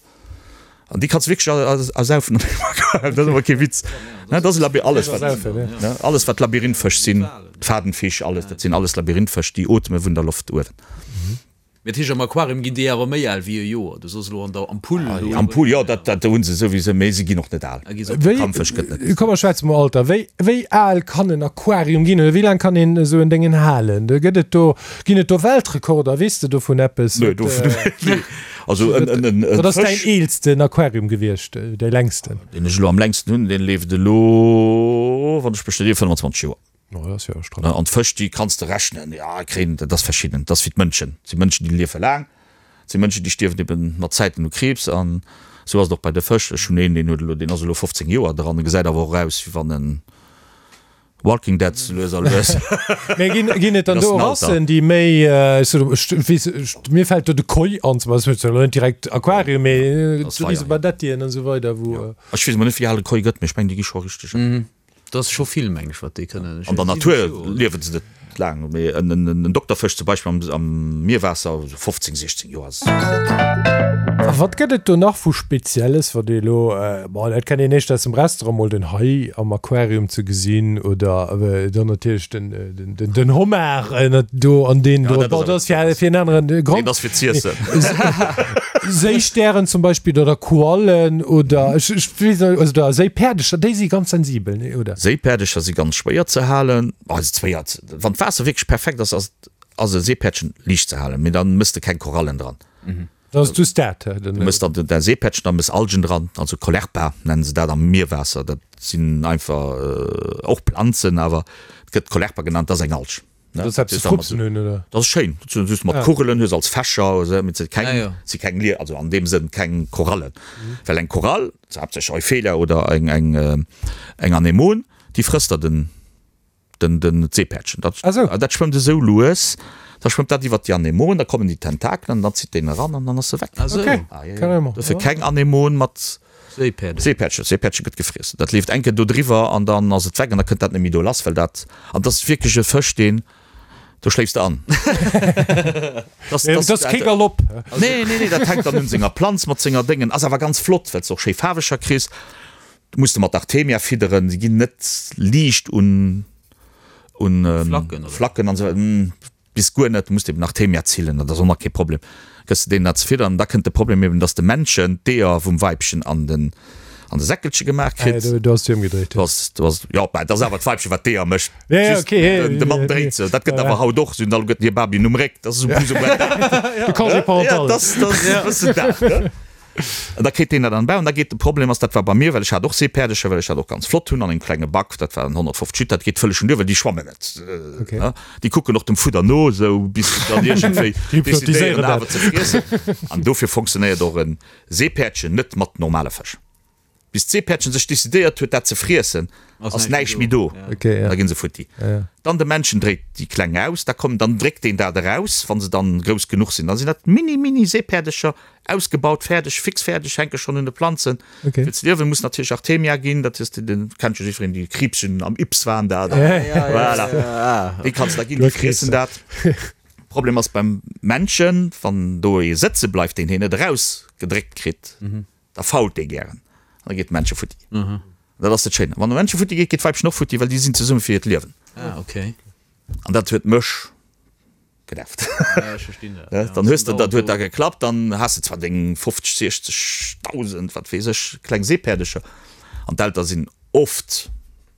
S3: an déi kanns de wierklech ersaufen. Dat ass awer kee Witz, dat ass e Labyrinth, alles wat, alles wat Labyrinthfësch sinn, d'Fadenfisch, alles, dat sinn alles Labyrinthfësch, déi ootme vun der Loft uewen.
S1: Mee dat heescht, am Aquarium ginn déi awer méi al wéi e Joer? Du soss elo an der Ampull
S3: do. Ampull, jo, dat, dat hu se souwisou, mee se ginn och net al.
S2: Wéi,
S3: Kampfësch gëtt net.
S2: Komm mer schwätze mol Alter. Wéi, wéi al kann en Aquarium ginn oder wéi laang kann een esou en Déngen halen? Do gëtt et do, ginn et do Weltrekorder? Weess de dovun eppes?
S3: Nee, dovun, nee. Also en, en, en,
S2: Wat ass däin
S3: Fësch.
S2: eelsten Aquarium gewiescht, däi längsten?
S3: Deen ech elo am längsten hunn, deen leeft elo, wann ech mech net ier, 25 Joer.
S2: Oh, dat ass jo stramm.
S3: An d'Fësch, déi kanns de rechnen, jo, kréien, dat ass verschidden, dat ass wéi d'Mënschen. Et si Mënschen, déi liefe laang, et si Mënschen, déi stierwen eben mat Zäiten u Kriibs. An esou ass et och bei de Fësch. Ech hunn een, deen huet elo, deen ass elo 15 Joer dran, e gesäit awer och aus, wéi wann en Walking Dead sou lues a lues.
S2: Mee ginn, ginn et dann
S3: Dat ass
S2: do
S3: den Alter.
S2: Rassen, déi méi, ech soen, ech weess, ech, mir fält do de Koi an zum Beispill, dat ass elo net direkt Aquarium, mee
S3: Dat ass
S2: esou
S3: Weier,
S2: riese
S3: jo.
S2: Badettien an esou weider, wou.
S3: Ech weess emol net, wéi al e Koi gëtt, mee ech mengen, déi gi scho richteg al.
S1: Dat ass scho vill, meng ech, wat déi kënnen.
S3: An der Natur liewe se net laang, mee en Dokterfësch zum Beispill am Mierwaasser, esou 15, 16 Joer ass.
S2: A wat gëtt et do nach vu Spezielles, wat ee elo, bon, dat kennt een éischter aus dem Restaurant, mol den Hai am Aquarium ze gesinn oder dann natierlech den Homard do an deen do, bon, dat ass fir en aneren Grond.
S3: Nee, dat ass fir z'iessen.
S2: Séistären zum Beispill oder Koallen oder ech ech weess net, also da Séipäerdecher, déi si ganz sensibel, nee oder?
S3: Séipäerdecher si ganz schwéier ze halen, also schwéier, wann d'Waasser wierklech perfekt ass, ass ass e Seepäerdchen liicht ze halen, mee dann mëss de keng Korallen dran.
S2: Dann ass just dat,
S3: Du mëss dann däi Seepäerdchen, da mëss Algen dran, also Caulerpa nennen se dat am Mierwaasser, dat sinn einfach och Planzen, awer et gëtt Caulerpa genannt, dat ass eng Alg.
S2: Dat ass eppes ze frupsen hunn, oder?
S3: Dat ass schéin, dat sinn just mat Kugelen, hues als Fächer, mee se keng, si keng Lie, also an deem Sënn keng Korallen. Well eng Korall, haaptsächlech Euphelia oder eng, eng, eng Anemon, déi frësst der den, den, den, d'Seepäerdchen. Dat, dat schwëmmt esou lues, da schwëmmt dat iwwert déi Anemon, da kommen déi Tentakelen an dann zitt deen eran an dann ass se weg.
S2: Okay, carrément.
S3: Dofir keng Anemon mat
S1: Seepäerdchen.
S3: Seepäerdchen, Seepäerdchen gëtt gefriess. Dat leeft eng Kéier do driwwer an dann ass et weg an da kënnt dat net méi do lass, well dat, an dat ass wierklech e Fësch, deen, do schléifs de an.
S2: Dat ass kee Galopp.
S3: Nee, nee, nee, dat hänkt dann un senger Planz mat senger Déngen. Ass awer ganz flott, well s de och schéi Faarweger kriss. Du muss de mat Artemia fidderen, se ginn net liicht un, un Flacken an esou. Bis guer net, du muss eben Artemia zillen, dat ass och nach kee Problem, gëss de deenen dat ze fiddern. Da kënnt de Problem eben, dass de Männchen d'Eeër vum Weibchen an den an de Säckelche gemaach kritt.
S2: Ah, do ass et ëmgedréit.
S3: Do ass, do ass, jo, mä et ass awer d'Weibchen, wat d'Eeër mécht.
S2: Ja, ja,
S3: Just
S2: okay, ja,
S3: den, de Mann
S2: ja,
S3: dréit se. Dat gëtt awer haut och, se hunn alleguerten hir Babyen um Réck, dat ass esou plus ou moins dat.
S2: De Congé
S3: Ja,
S2: parental.
S3: dat ass, dat ass e bëssen dat, ne? An da kritt deen dat an den Bau. An da geet de Problem ass, dat war bei mir, well ech hat och Seepäerdecher, well ech dat och ganz flott hunn an engem klenge Back, dat waren 150 Liter, dat geet vëlleg duer, well déi schwammen net.
S2: Okay.
S3: Déi kucken och dem Fudder no, esou bis se dann iergendwéi decidéieren awer ze friessen. An dofir fonctionnéiert och e Seepäerdchen net mat normale Fësch. Bis d'Seepäerdchen sech decidéiert huet, dat ze friessen, ass näischt méi do. Da ginn se futti. Dann de Männchen dréit déi Kleng aus, da kommen, dann dréckt deen dat eraus, wa se dann grouss genuch sinn. Da sinn dat mini, mini Seepäerdecher, ausgebaut, fäerdeg, fix fäerdeg, hänke schonn un de Planzen. Fir ze liewen muss natierlech Artemia ginn, dat hues de, den kennt jo jiddwereen, déi Kriibschen am Ybbs waren dat. Voilà, déi kanns de da ginn, déi friessen dat. Problem ass beim Männchen, wann do ee sëtze bleift, deen hien net erausgedréckt kritt, Da fault dee gären an da geet d'Männche futti. An dat ass dat Schéine. Wann de Männche futti geet, geet d'Weibchen och futti, well déi sinn zesumme fir hiert Liewen.
S1: Ah, okay.
S3: An dat huet mech genervt.
S1: Ja, ech verstinn dat.
S3: Ja, dann hues de, dat huet da geklappt, dann has de zwar deng 50, 60 Dausend, wat weess ech, kleng Seepäerdecher. An d'Elter sinn oft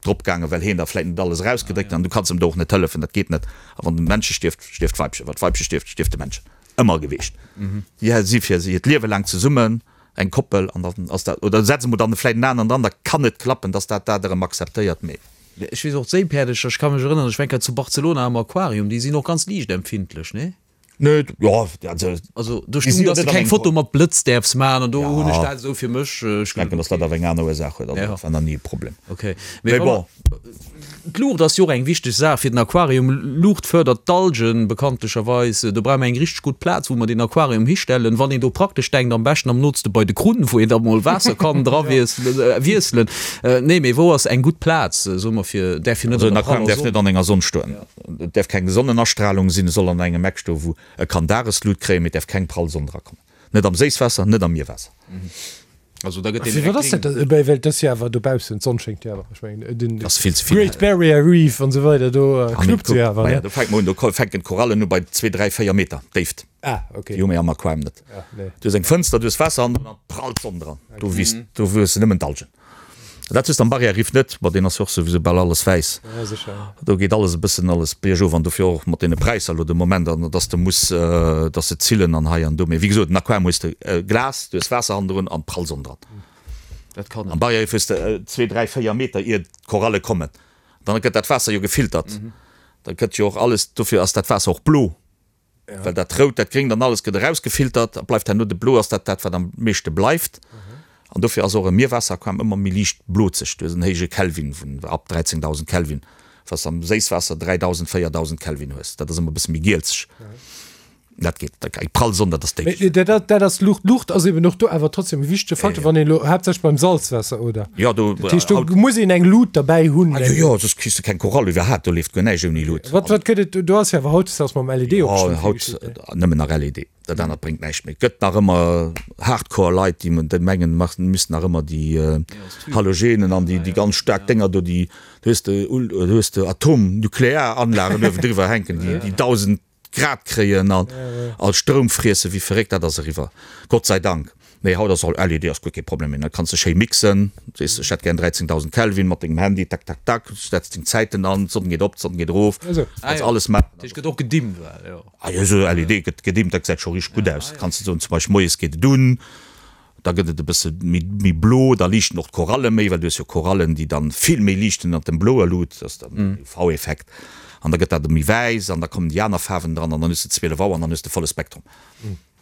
S3: drop gaangen, well heen da vläit net alles erausgedréckt huet. An du kanns em do och net hëllefen, dat geet net. A wann de Männche stierft, stierft d'Weibchen. Wann d'Weibche stierft, stierft de Männchen. Ëmmer geweecht. Déi si fir hiert Liewe laang zesummen, eng Koppel, an dann ass dat, oder setze mer dann vläit en aneren dran, da kann et klappen, dass dat dat erëm akzeptéiert, mee.
S1: Ech weess och, d'Séipäerdecher, ech ka mech erënneren, ech war eng Kéier zu Barcelona am Aquarium, déi sinn och ganz liichtempfindlech, nee?
S3: Nee, jo, also.
S1: Also do stung, dass de keng Foto mat Blëtz däerfs maachen, an do hunn ech dat esou fir mech.
S3: Ech denken, dass dat awer eng aner Ursaach huet, also dat war nach ni e Problem.
S1: Okay, mee bon. D'Luucht ass jo och eng wichteg Saach fir den Aquarium. Luucht fërdert d'Algen bekanntlecherweis. Do brauche mer eng richteg gutt Plaz, wou mer deen Aquarium histellen. Wann een do praktesch denkt, am beschten am nootste bei de Krunn, wou een da mol Waasser kann dra wiesselen. Nee, mee wou ass eng gutt Plaz, soe mer, fir, däerf jo net
S3: an der praller Sonn. Also en Aquarium däerf net an enger Sonn stoen. Et däerf keng Sonnenastralung sinn. Et soll an engem Eck stoen, wou e kann Dageslut kréien, mee et däerf keng prall Sonn drakommen. Net am Séisswaasser, net am Mierwaasser.
S1: Also da gëtt deen
S2: Wat ass dat? Well well dat ass jo awer dobaussen, d'Sonn schéngt jo awer. Ech mengen den
S3: Ass vill ze vill
S2: Great Barrier Reef an esou weider, do knuppt se jo awer, ne?
S3: Do fänkt mer un, do fänken d'Korallen u bei zwee, dräi, véier Meter Déift.
S2: Ah, okay.
S3: Déi hu mir am Aquarium net.
S2: Ja, nee.
S3: Du hues eng Fënster, du hues Waasser an dann prallt d'Sonn dran. Do wiisst, do wuesse nëmmen d'Algen. Dat hues de am Barrière-Riff net, ma deen ass jo och souwisou bal alles wäiss.
S2: Ja, sécher.
S3: Do geet alles e bëssen alles biergof an dofir och mat deene Präisser elo de Moment an dass de muss, dass se zillen an hei an do. Mee wéi gesot, en Aquarium hues de Glas, du hues Waasser hannendrun an prall Sonn dran.
S1: Dat kann
S3: Am Barrière-Riff hues de zwee, dräi, véier Meter ier d'Koralle kommen. Dann gëtt dat Waasser jo gefiltert. Da gëtt jo och alles, dofir ass dat Waasser och blo. Well dat Rout, dat Gréngt an alles gëtt erausgefiltert a bleift herno de Blo ass dat dat, wat am meeschte bleift. An dofir ass och e Mierwaasser-Aquarium ëmmer méi liicht blozeg. Du hues en héije Kelvin vun ab 13.000 Kelvin, was am Séisswaasser 3.000, 4.000 Kelvin hues. Dat ass ëmmer e bësse méi gielzeg. Dat geet, dat eng prall Sonn, dat ass déif.
S2: Mee dat, dat ass Luucht. Luucht ass eben och do awer trotzdem e wichtege Faktor, wann een elo haaptsächlech beim Salzwaasser, oder?
S3: Jo, do.
S2: Dat heescht, do muss een eng Lut derbäi hunn.
S3: Ah jo, jo, soss kriss de keng Korall iwwerhaapt. Do leeft guer näischt ouni Lut.
S2: Wat, wat gëtt et, do ass jo awer hautdesdaags mam LED och
S3: Jo,
S2: bestimmt vill
S3: haut
S2: geschitt, ne?
S3: nëmmen nach LED. Dat anert bréngt näischt méi. Et gëtt nach ëmmer Hardcore Leit, déi déi mengen, mach, missten nach ëmmer déi Halogenen an déi, déi ganz staark Dénger do, déi, do hues de, do hues de Atom-Nuklearanlagen uewendriwwer hänken, déi, déi 1.000 Grad kréien an all Stroum friessen wéi verréckt, dat ass eriwwer, Gott sei Dank. Nee, haut ass all LED ass guer kee Problem méi, da kanns de schéi mixen, sees ech hätt gär 13.000 Kelvin mat dengem Handy, tak tak tak, setz deng Zäiten an, d'Sonn geet op, d'Sonn geet erof, kanns alles maachen.
S1: Dat heescht gëtt och gedimmt well, jo.
S3: Ah jo, esou LED gëtt gedimmt, dat gesäit scho richteg gutt aus. Kanns de soen, zum Beispill moies geet et un, Da gëtt et e bësse méi blo, da liichten och d'Koralle méi, well du hues jo Korallen, déi dann vill méi liichten ënnert dem bloer Lut, dat ass dann den UV-Effekt, an da gëtt dat méi wäiss an da kommen déi aner Faarwen dran an dann hues de 12 Auer an dann hues de volle Spektrum,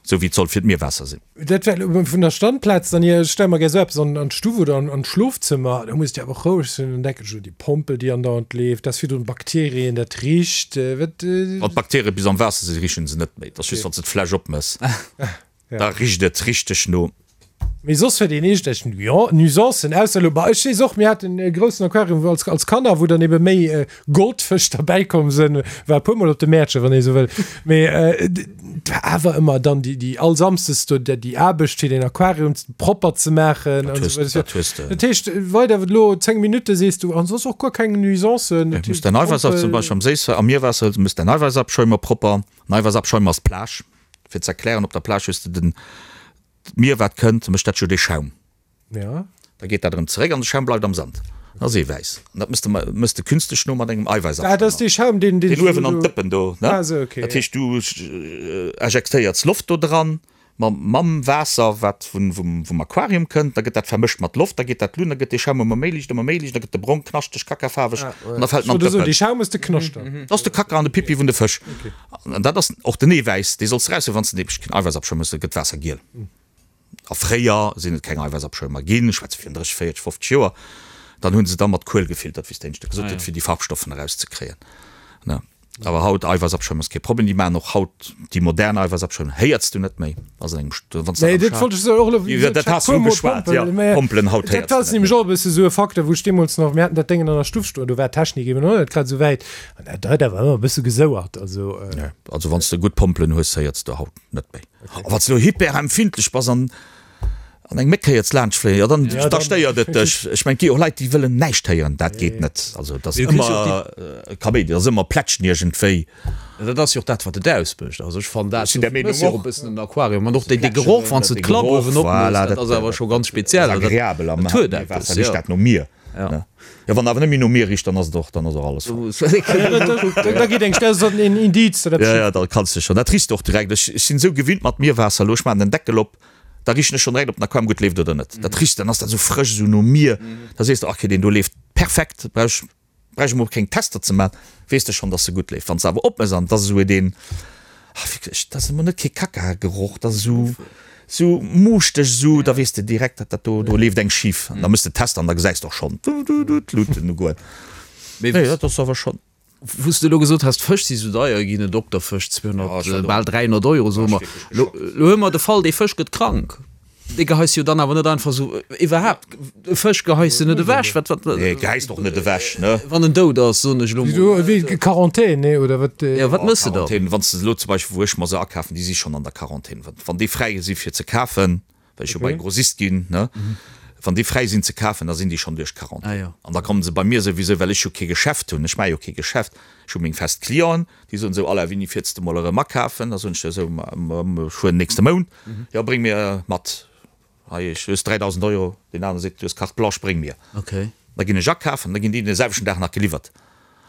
S3: esou wéi et soll fir d'Mierwaasser sinn.
S2: Dat war elo vun der Standplaz dann hier. Ech stelle mer gär esou eppes an d'Stuff oder an d'Schlofzëmmer, da muss et jo awer och roueg sinn. Dann denken ech un déi Pompel, déi andauernd leeft, dat ass virdrun Bakterien, dat richt, wat.
S3: Wann d'Bakterie bis am Waasser sinn, richen se net méi, et ass just wann s de d'Fläsch opmëss. Da richt et richteg no.
S2: Mee soss huet een iergendwelch Nuisancen, ausser elo, bah, ech weess och, mir haten e groussen Aquarium wou als, als Kanner, wou dann ebe méi Goldfësch derbäi komm sënn, war e puermol op de Mäertche, wann ee sou wëll, mee et war awer ëmmer dann déi, déi all Samsdes do déi Aarbecht fir den Aquarium propper ze maachen an esou weider.
S3: Dat hues de.
S2: Dat heescht, weider elo 10 Minutte sees du, an soss och guer keng Nuisancen.
S3: Du muss däin Eiwäissab zum Beispill am Séisswaasser, am Mierwaasser, du muss däin Eiwäissabschäumer propper, en Eiwäissabschäumer ass d'Plage. Fir ze erklären, op der Plage hues de den, d'Mier wat kënnt, mécht dat jo dee Schaum.
S2: Ja.
S3: Da geet dat erëm zeréck an de Schaum bleift am Sand. Dat ass Eewäiss. An dat mëss de, mëss de künstlech no mat engem Eiwäissabschäumer.
S2: Ah, dat ass dee Schaum, deen,
S3: deen. Deen uewen an d'Dëppen do, ne?
S2: Ah, esou, okay.
S3: Dat heescht, du ejektéierts Loft do dran. Mam, mam Waasser, wat vun, vum, vum Aquarium kënnt, da gëtt dat vermëscht mat Loft, da geet dat luen, da gëtt dee Schaum ëmmer méi liicht, ëmmer méi liicht, da gëtt de brong, knaschteg, kackafaarweg an da fält en an
S2: d'Dëppen. Dee Schaum ass de Knascht
S3: dann? Dat ass de Kacka an de Pipi vun de Fësch. An dat ass och den Eewäiss, dee solls de eraushuelen, wann s de nämlech keen Eiwäissabschäum hues, da gëtt d'Waasser giel. A fréier sinn et keng Eiwäissabschäumer ginn, ech schwätze virun 30, 40, 50 Joer, dann hu se da mat Kuel gefiltert, wéi s de éinescht gesot huet, fir déi Farbstoffen erauszekréien. Ne? Awer haut Eiwäissabschäum ass kee Problem, déi maachen och haut déi modern Eiwäissabschäum, héiers du net méi, ass an engem St-, wann s de
S2: Nee, dat wollt ech soen, och elo,
S3: wéi dat
S2: dat
S3: has du ugeschwat, jo, Pompelen haut
S2: héiers du net méi. Dat ass nämlech och e bësse sou e Facteur, wou ech deemools nach, mir haten dat Déngen an der Stuff stoen, do war d'Technik eben och net grad esou wäit an dat huet awer ëmmer e bësse gesouert, also.
S3: Nee, also wann s de gutt Pompelen hues, héiers de haut net méi. A wann s de elo hyperempfindlech bass an An eng Méck héiert laanscht fléien, jo dann da stéiert et dech. Ech mengen, et gi och Leit, déi wëllen näischt héieren, dat geet net. Also et ass ëmmer Kaméidi, et ass ëmmer Plätschen iergendwéi.
S1: Dat ass jo och dat, wat et ausmécht. Also ech fannen dat, dofir méchs jo och e bëssen en Aquarium. An och dee Geroch, wann s de d'Klapp uewen opméchs, dat ass awer scho ganz speziell.
S3: Dat ass agreabel am Waasser richt dat no Mier. Jo, wann awer net méi no Mier richt, dann ass et och, dann ass och alles
S2: falsch. Da geet eng, dat ass en Indiz,
S3: datt eppes. Jo, jo, da kanns de schonn, dat richs de och direkt. Ech sinn esou gewinnt mat Mierwaasser elo, ech maachen den Deckel op, Da richen ech schon direkt op den Aquarium gutt leeft oder net. Dat richt, dann ass dat esou frësch esou no Mier. Da sees de, okay deen do leeft perfekt, brauch brauch ech mol keng Tester ze man, weess de schon dass se gutt leeft. Wann s de awer opmëss an et ass esou deen, ah wierklech, dat ass emol net kee Kacka-Geroch, dat ass esou esou muuschteg esou, da weess de direkt dat dat do do leeft eng schif. An da mëss de Tester an da gesäis de och schon d'Luuten ugoen. Nee dat ass awer schon.
S1: Wou s de elo gesot has, d'Fësch si sou deier ginn, en Dokterfësch 200, bal 300 Euro, soe mer. Elo hu mer de Fall, dee Fësch gëtt krank. Dee geheis jo dann awer net einfach sou, iwwerhaapt, e Fësch geheis de net ewech. Wat, wat.
S3: Nee, geheis de och net ewech, ne?
S1: Wann en dout ass, soen ech elo mol.
S2: Wéi Quarantän, nee, oder wat?
S1: Jo, wat méchs de
S3: dann? Quarantän, wann s de elo zum Beispill, wou ech mer se akafen, déi si schonn an der Quarantän. Wann déi fräi si fir ze kafen, well ech jo bei Grossist ginn, ne, wann déi fräi sinn ze kafen, da sinn déi schonn duerch d'Quarantän. Ah, jo. An da kommen se bei mir souwisou, well ech jo kee Geschäft hunn, ech maache jo kee Geschäft, ech hu meng fest Clienten, déi soen esou, Alain, wéini fiers de mol erëm akafen? Da soen ech esou, ma ech fueren nächste Mount. Jo, bréng mir mat, hei, ech, du hues 3.000 Euro, deen anere seet, du hues Carte blanche, bréng mir.
S1: Okay.
S3: Da ginn ech akafen, da ginn déi den selwechten Dag nach geliwwert.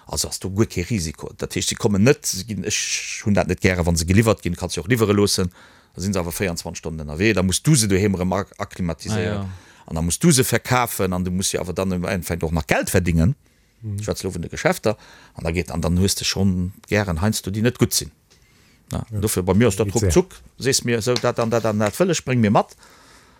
S3: Also ass do guer kee Risiko. Dat heescht, si kommen net, si ginn, ech hunn dat net gären, wa se geliwwert ginn, kanns jo och liwwere loossen, da si se awer 24 Stonnen ënnerwee, da muss du se doheem erëm akklimatiséieren an da muss du se verkafen an du muss jo awer dann im Endeffekt och nach Geld verdingen, ech schwätze elo vun de Geschäfter, an da geet, an dann hues de schonn gären heiansdo déi net gutt sinn. Dofir bei mir ass dat ruckzuck, sees mir esou dat an dat an dat wëll ech, bréng mir mat.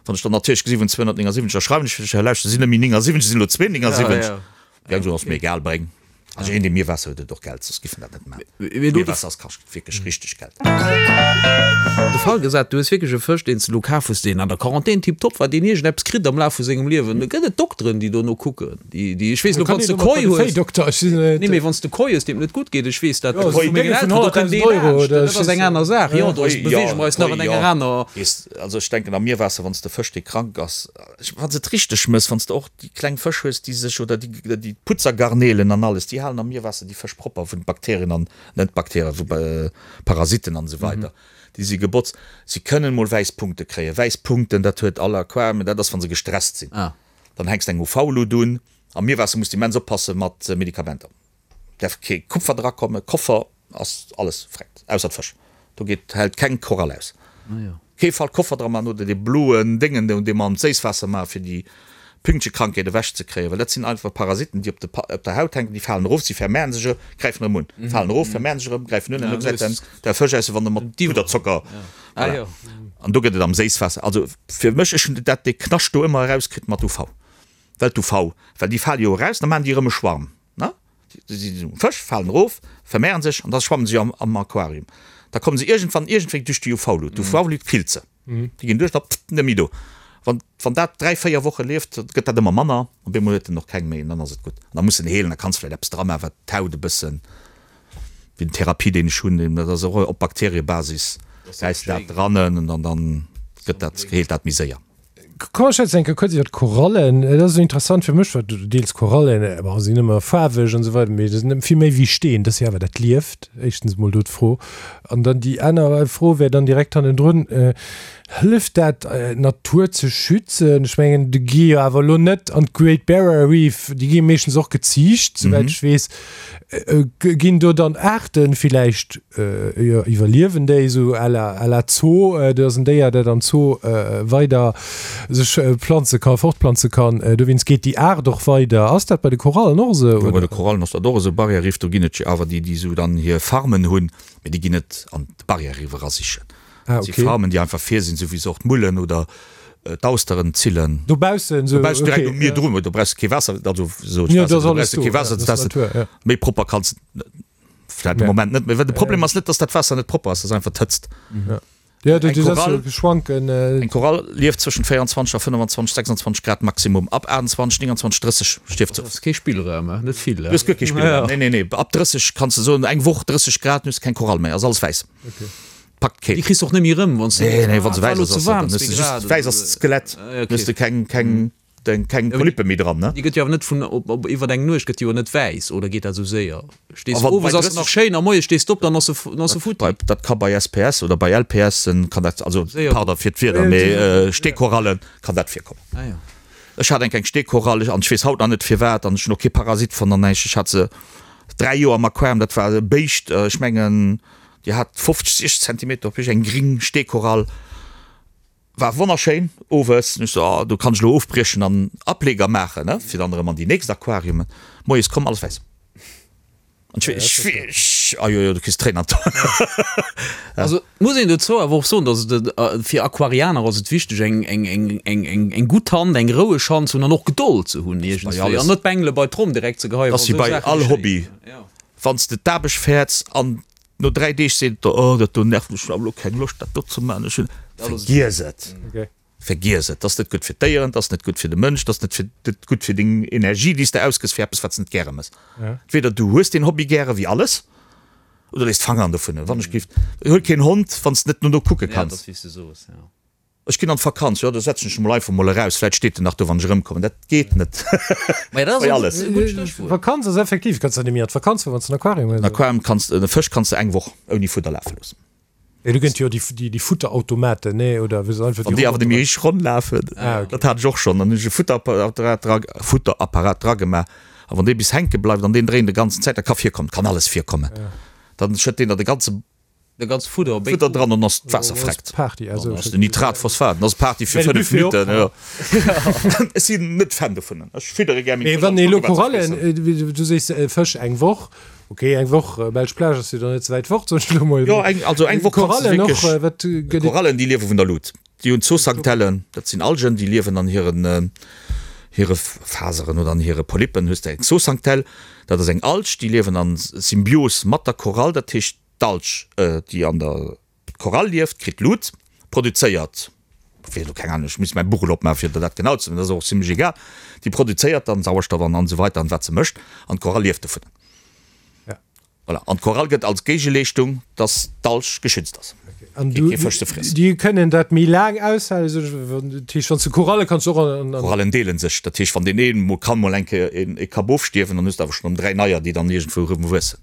S3: Wann ech dann natierlech gesi vun 279, da schreiwen ech fir dech, lauschter, sinn net méi 79, sinn elo 279. Ja, so ass mir egal, bréng. Also een dee Mierwaasser huet, huet och Geld, soss giff en dat net maachen. Mierwaasser ass kascht wierklech richteg Geld.
S1: De Fall gesat, du hues wierklech e Fësch, deen s de elo kaf hues, deen an der Quarantän tiptop war, deen iergendeppes kritt am Laf vu sengem Liewen. Da gëtt et Dokteren, déi dono kucken, déi, déi, ech weess elo, wann s de Koi hues, nee, mee wann s de Koi hues, deem et net gutt geet, ech weess dat vu mengen Elteren, do kënnt dee laanscht, dat ass eng aner Saach. Jo, do beweege mer eis nach an enger aner.
S3: Also ech denken, am Mierwaasser, wann s de Fësch, dee krank ass, Wann s de et richteg mëss, wann s de och déi kleng Fësch hues, déi sech, oder déi, déi Putzergarnelen an alles, déi halen am Mierwaasser déi Fësch propper vun Bakterien an, net Bakterien, vu Parasiten an esou weider. Déi si gebotzt. Si kënnen mol wäiss Punkte kréien. Wäiss Punkten, dat huet all Aquarium, dat ass, wa se gestresst sinn. Dann hänks de eng UV-Lut un. Am Mierwaasser muss de immens oppasse mat Medikamenter. Därf kee Kupfer dra kommen, Koffer ass alles freckt, ausser d'Fësch. Do geet, hält keng Korall aus. Kee Fall Koffer dra man oder dee bloen Déngen do, dee mer an d'Séisswaasser maachen, fir déi Pünktchekrankheet ewech ze kréien, well dat sinn einfach Parasiten, déi op de, op der Haut hänken, déi falen erof, si vermehren sech erëm, gräifen erëm un, falen erof, vermehren sech erëm, gräifen un, an do gesäit dann der Fësch aus, wéi wann e mat Puderzocker, voilà. An do gëtt et am Séisswaasser, also fir mech, ech hunn dat, dee Knascht do ëmmer erauskritt mat UV, well d'UV, well déi fale jo eraus, da maachen déi erëm e Schwarm. Ne? Si sinn um Fësch, falen erof, vermehren sech an da schwammen se am Aquarium. Da kommen se iergendwann iergendwéi duerch déi UV-Lut. D'UV-Lut killt se. Déi ginn duerch, da pff, net méi do. Wann, wann dat 3, 4 Woche lieft, gëtt dat ëmmer manner. Op eemol huet en och keng méi an dann ass et gutt. An da muss en heelen, da kanns vläicht eppes dra maachen, wat d'Haut e bëssen, wéi den Therapie, deen ech hunn, dat ass och op Bakteriebasis, gäis de dat dran an dann gëtt dat, heelt dat méi séier.
S2: Komm mer schwätzen eng Kéier kuerz iwwer d'Korallen. Et ass esou interessant fir mech, well du deels Korallen, bon, sinn ëmmer faarweg an esou weider, mee dat sinn vill méi wéi Steen, dat ass jo awer dat lieft. Éischtens emol do d'Fro. An dann déi aner Fro wär dann direkt hannendrun, Hëlleft dat, d'Natur ze schützen? Ech mengen, déi gi jo awer elo net an d'Great Barrier Reef, déi gi meeschtens och geziicht, souwäit ech weess. Ginn do dann Aarten villäicht, jo, iwwerliewen déi esou à la, à la Zoo? Do ass en Déier, dat am Zoo weider sech planze kann, fortplanze kann. Dowéinst geet déi Aart och weider. Ass dat bei de Korallen och esou,
S3: Jo, bei
S2: oder?
S3: de Korallen ass dat och esou. Barrière-Riff, do ginn et jo awer déi, déi esou dann hir Farmen hunn, mee déi ginn net an d'Barrière-Riff erasichen.
S2: Ah,
S3: Dat si
S2: okay.
S3: Farmen, déi einfach fir sinn, esou wéi se och d'Mullen oder d'Austeren zillen.
S2: Dobaussen esou,
S3: Dobaussen direkt
S2: okay,
S3: um Mier
S2: ja.
S3: drun, do brauchs de kee Waasser, also sot
S2: Ja, do
S3: Waasser,
S2: ass
S3: do
S2: alles
S3: brauchs de
S2: do,
S3: kee
S2: ja,
S3: Waasser
S2: dat
S3: ze
S2: ass
S3: testen.
S2: Natur, ja.
S3: Méi propper kanns de vläit de
S2: Ja.
S3: Moment net méi, well de Problem ass net, dass dat Waasser net propper ass, dat ass einfach d'Hëtzt.
S2: Ja, ja du,
S3: Eng
S2: du setz
S3: Korall,
S2: jo schwanken. Äh,
S3: eng Korall lieft zwëschent 24 a 25, 26 Grad Maximum. Ab 28, 29, 30 stierft se
S1: Dat
S3: of.
S1: ass kee Spillraum, eh? Net vill,
S3: Du hues guer kee
S1: eh?
S3: Spillraum.
S1: Ja.
S3: Nee, nee, nee. Ab 30 kanns de soen, eng Woch 30 Grad, du hues keng Korall méi, ass alles wäiss.
S2: okay.
S3: Packt keen.
S1: Déi kriss de och net méi erëm, wann s de.
S3: Nee, nee, wann se
S1: Ah,
S3: wäiss
S1: war
S3: ass,
S1: lo ze
S3: ass se,
S1: waarm,
S3: dann hues
S1: zwee
S3: de just,
S1: Grad
S3: wäiss
S1: oder
S3: ass
S1: sou.
S3: d'Skelett,
S1: Ah,
S3: dann hues
S1: okay.
S3: de keng, keng, deng, keng
S1: Ja, mee
S3: Polyppe méi dran, ne?
S1: déi gëtt jo awer net vun, op, op, iwwer eng Nuecht gëtt déi jo net wäiss, oder geet dat esou séier?
S3: A
S1: Stees
S3: wann bei
S1: owes ass se nach
S3: 30,
S1: schéin a moies stees de op, dann ass se, dann ass se
S3: dat,
S1: futti.
S3: bei, dat ka bei SPS oder bei LPSen kann dat, also
S1: Séier
S3: pardon
S1: goen.
S3: fir d'Wierder, mee Steekorallen kann dat virkommen.
S1: Ah jo.
S3: Ech hat eng kleng Steekorall an ech weess haut nach net firwat an ech hunn och kee Parasit fonnt an näischt. Ech hat se 3 Joer am Aquarium, dat war e Béischt, ech mengen Déi hat 50, 60 Zentimeter op Héicht, eng gring Steekorall, war wonnerschéin owes. Ech so, oh, do kann ech elo ofbriechen an Ableger maachen, ne, fir dann erëm an déi nächst Aquariumen. Moies komm, alles wäiss. An ech, ech, ech, ah jo, jo, du kriss Tréinen an d'Aen.
S1: Also et muss een dozou awer och soen, datt et fir Aquarianer ass et wichteg eng, eng, eng, eng, eng, eng gutt Hand, eng roueg Hand ze hunn an och Gedold ze hunn
S3: Bei
S1: iergendswéi
S3: alles.
S1: an net d'Bengele bei d'Tromm direkt ze geheien,
S3: Ass
S1: wa
S3: wéi
S1: sou
S3: bei
S1: Saache
S3: all
S1: geschéien.
S3: Hobby. Wann s de d'Aarbecht fäerts an No 3 Deeg seet et der, oh dat do nervt mech, ech hunn awer elo keng Loscht dat do ze maachen, ech hunn. Vergiess et! Vergiess et! 't ass net gutt fir d'Déieren, 't ass net gutt fir de Mënsch, 't ass net fir net gutt fir deng Energie, déi s de ausgëss fir eppes wat s de net gäre mëss. Entweder du hues deen Hobby gäre wéi alles, oder léiss d'Fangeren dovun. Wann ech géif, huel keen Hond, wann s de net no no kucke kanns. Ech ginn an d'Vakanz, jo, da setzen ech mol einfach mol eraus, vläit steet en nach do, wann ech erëmkommen. Dat geet net bei alles.
S2: Vakanz ass effektiv, kanns der net méi an d'Vakanz fueren, wann s de en Aquarium hues.
S3: En Aquarium kanns, e Fësch kanns de eng Woch ouni Fudder lafe loossen.
S2: Jo, do gëtt jo déi, déi Futterautomaten, nee, oder wou se einfach
S3: Wann déi awer net méi richteg ronn lafen, dat hat ech och schonn, dann hunn ech e Futterapparat dra, Futterapparat dragemaach, a wann dee bis hänke bleift an deen dréint de ganzen Zäit, dat ka virkommen, kann alles virkommen, dann schëtt deen der de ganze.
S1: De ganze Fudder op
S3: Fudder dran an ass d'Waasser freckt.
S2: Party, also
S3: Dann ass den Nitrat, Phosphat, dann ass Party fir 5 Minutten. Jo. Ech sinn net Fan dovun. Ech fiddere gär meng
S2: Mee
S3: Fësch
S2: wann
S3: an
S2: ee elo
S3: kucke wat se
S2: Korallen,
S3: friessen.
S2: du sees Fësch eng Woch, ok eng Woch, Belsch Plage ass jo dann net ze wäit fort, soen ech elo mol.
S3: Jo, eng, also eng Woch kanns de
S2: Korallen och,
S3: wierklech.
S2: wat gëtt et?
S3: Korallen déi liewe vun der Lut. Déi hunn Zooxanthellen, dat sinn Algen, déi liewen an hiren hire Faseren oder an hire Polypen hues de eng Zooxanthell, dat ass eng Alg, déi liewen an Symbios mat der Korall, dat heescht D'Alg, déi an der Korall lieft, kritt Lut, produzéiert, fir elo keng Ahnung, ech misst mäi Buch elo opmaachen, fir der dat genau ze soen, dat ass och zimlech egal, déi produzéiert dann Sauerstoff an an esou weiter an wat se mécht, an d'Korall lieft dovun. Voilà. An d'Korall gëtt als Géigeleeschtung, dass d'Alg geschützt ass,
S2: An
S3: géint kee Fësch ze friessen.
S2: déi kënnen dat méi laang aushalen, sou dat heescht, wann s de Koralle kanns du och an.
S3: Korallen deelen sech, dat heescht, wann deen een mol kann mol eng Kéier ee Kapp ofstierwen, dann hues de awer schonn erëm 3 neier, déi dann iergendwou erëm wuessen.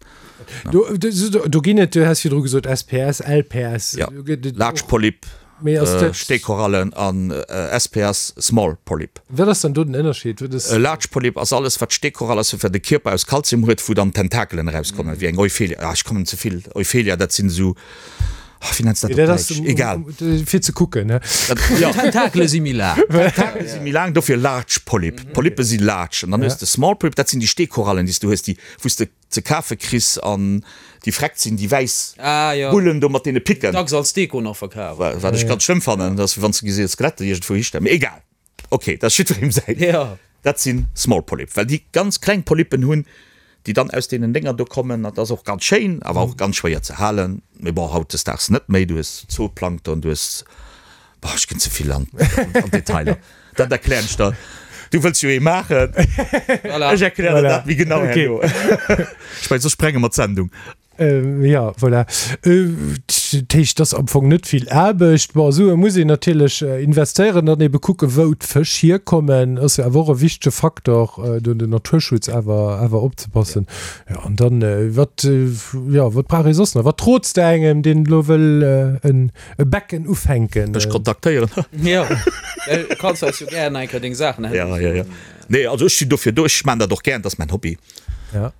S2: Do, do, do ginn et, du has virdru gesot SPS, LPS.
S3: Ja,
S2: Do gëtt et
S3: Large
S2: och-
S3: Polyp,
S2: Mee ass dat-
S3: Steekorallen an SPS, Small Polyp.
S2: Wat ass dann do den Ënnerscheed? Wat ass.
S3: E Large Polyp ass alles, wat Steekorall ass, wat de Kierper aus Kalzium huet, wou dann Tentakelen erauskommen, wéi eng Euphelia. Ah, ech kommen ze vill. Euphelia, dat sinn esou, ah, wéi nenns de dat
S2: Dat
S3: op
S2: ass
S3: Däitsch?
S2: um,
S3: Egal.
S2: um, um, fir ze kucken, ne?
S3: Dat, ja.
S1: Tentakele si méi laang.
S3: Tentakele si méi laang, dofir Large Polyp. Polyppe si large. An dann hues de Small Polyp, dat sinn déi Steekorallen, déi s du hues, déi, wou s de ze kafe kriss an déi freckt sinn, déi wäiss
S1: Ah, jo.
S3: Bullen do mat deene Picken.
S1: Dacks als Deko nach verkaf.
S3: Wat ech ganz schlëmm fannen, dat ass wéi wann s de gesi Skelette iergendwou histellen. Mee egal, ok, dat ass jiddwerem säin.
S1: Jo.
S3: Dat si Small Polyp, well déi ganz kleng Polyppen hunn, déi dann aus deenen Dénger do kommen. Dat ass och ganz schéin, awer och ganz schwéier ze halen. Mee bon, hautdesdaags net méi. Du hues Zooplankton, du hues Boah, ech ginn ze vill an d'Detailer. Dat erklären ech der. Du wëlls jo ee maachen.
S1: Voilà.
S3: Ech erklären der dat méi genau
S2: Okay.
S3: herno. Ech mengen, soss sprenge mer d'Sendung.
S2: Jo, voilà. Dat heescht, et ass am Fong net vill Aarbecht. Bon, Sue muss een natierlech investéieren, dann ebe kucken, wou d'Fësch hierkommen, ass jo awer och e wichtege Faktor, do den Naturschutz awer, awer opzepassen. Jo, an dann, wat, jo, wat brauch ee soss nach? Wat rots de engem, deen elo wëll en e Becken ufänken?
S3: Mech kontaktéieren.
S1: Jo, du kanns eis jo gären eng Kéier deng Saachen
S3: Ja, ja, ja. Nee, also ech sinn dofir do, ech maan dat och gären, dat ass mäin Hobby.
S2: Ja.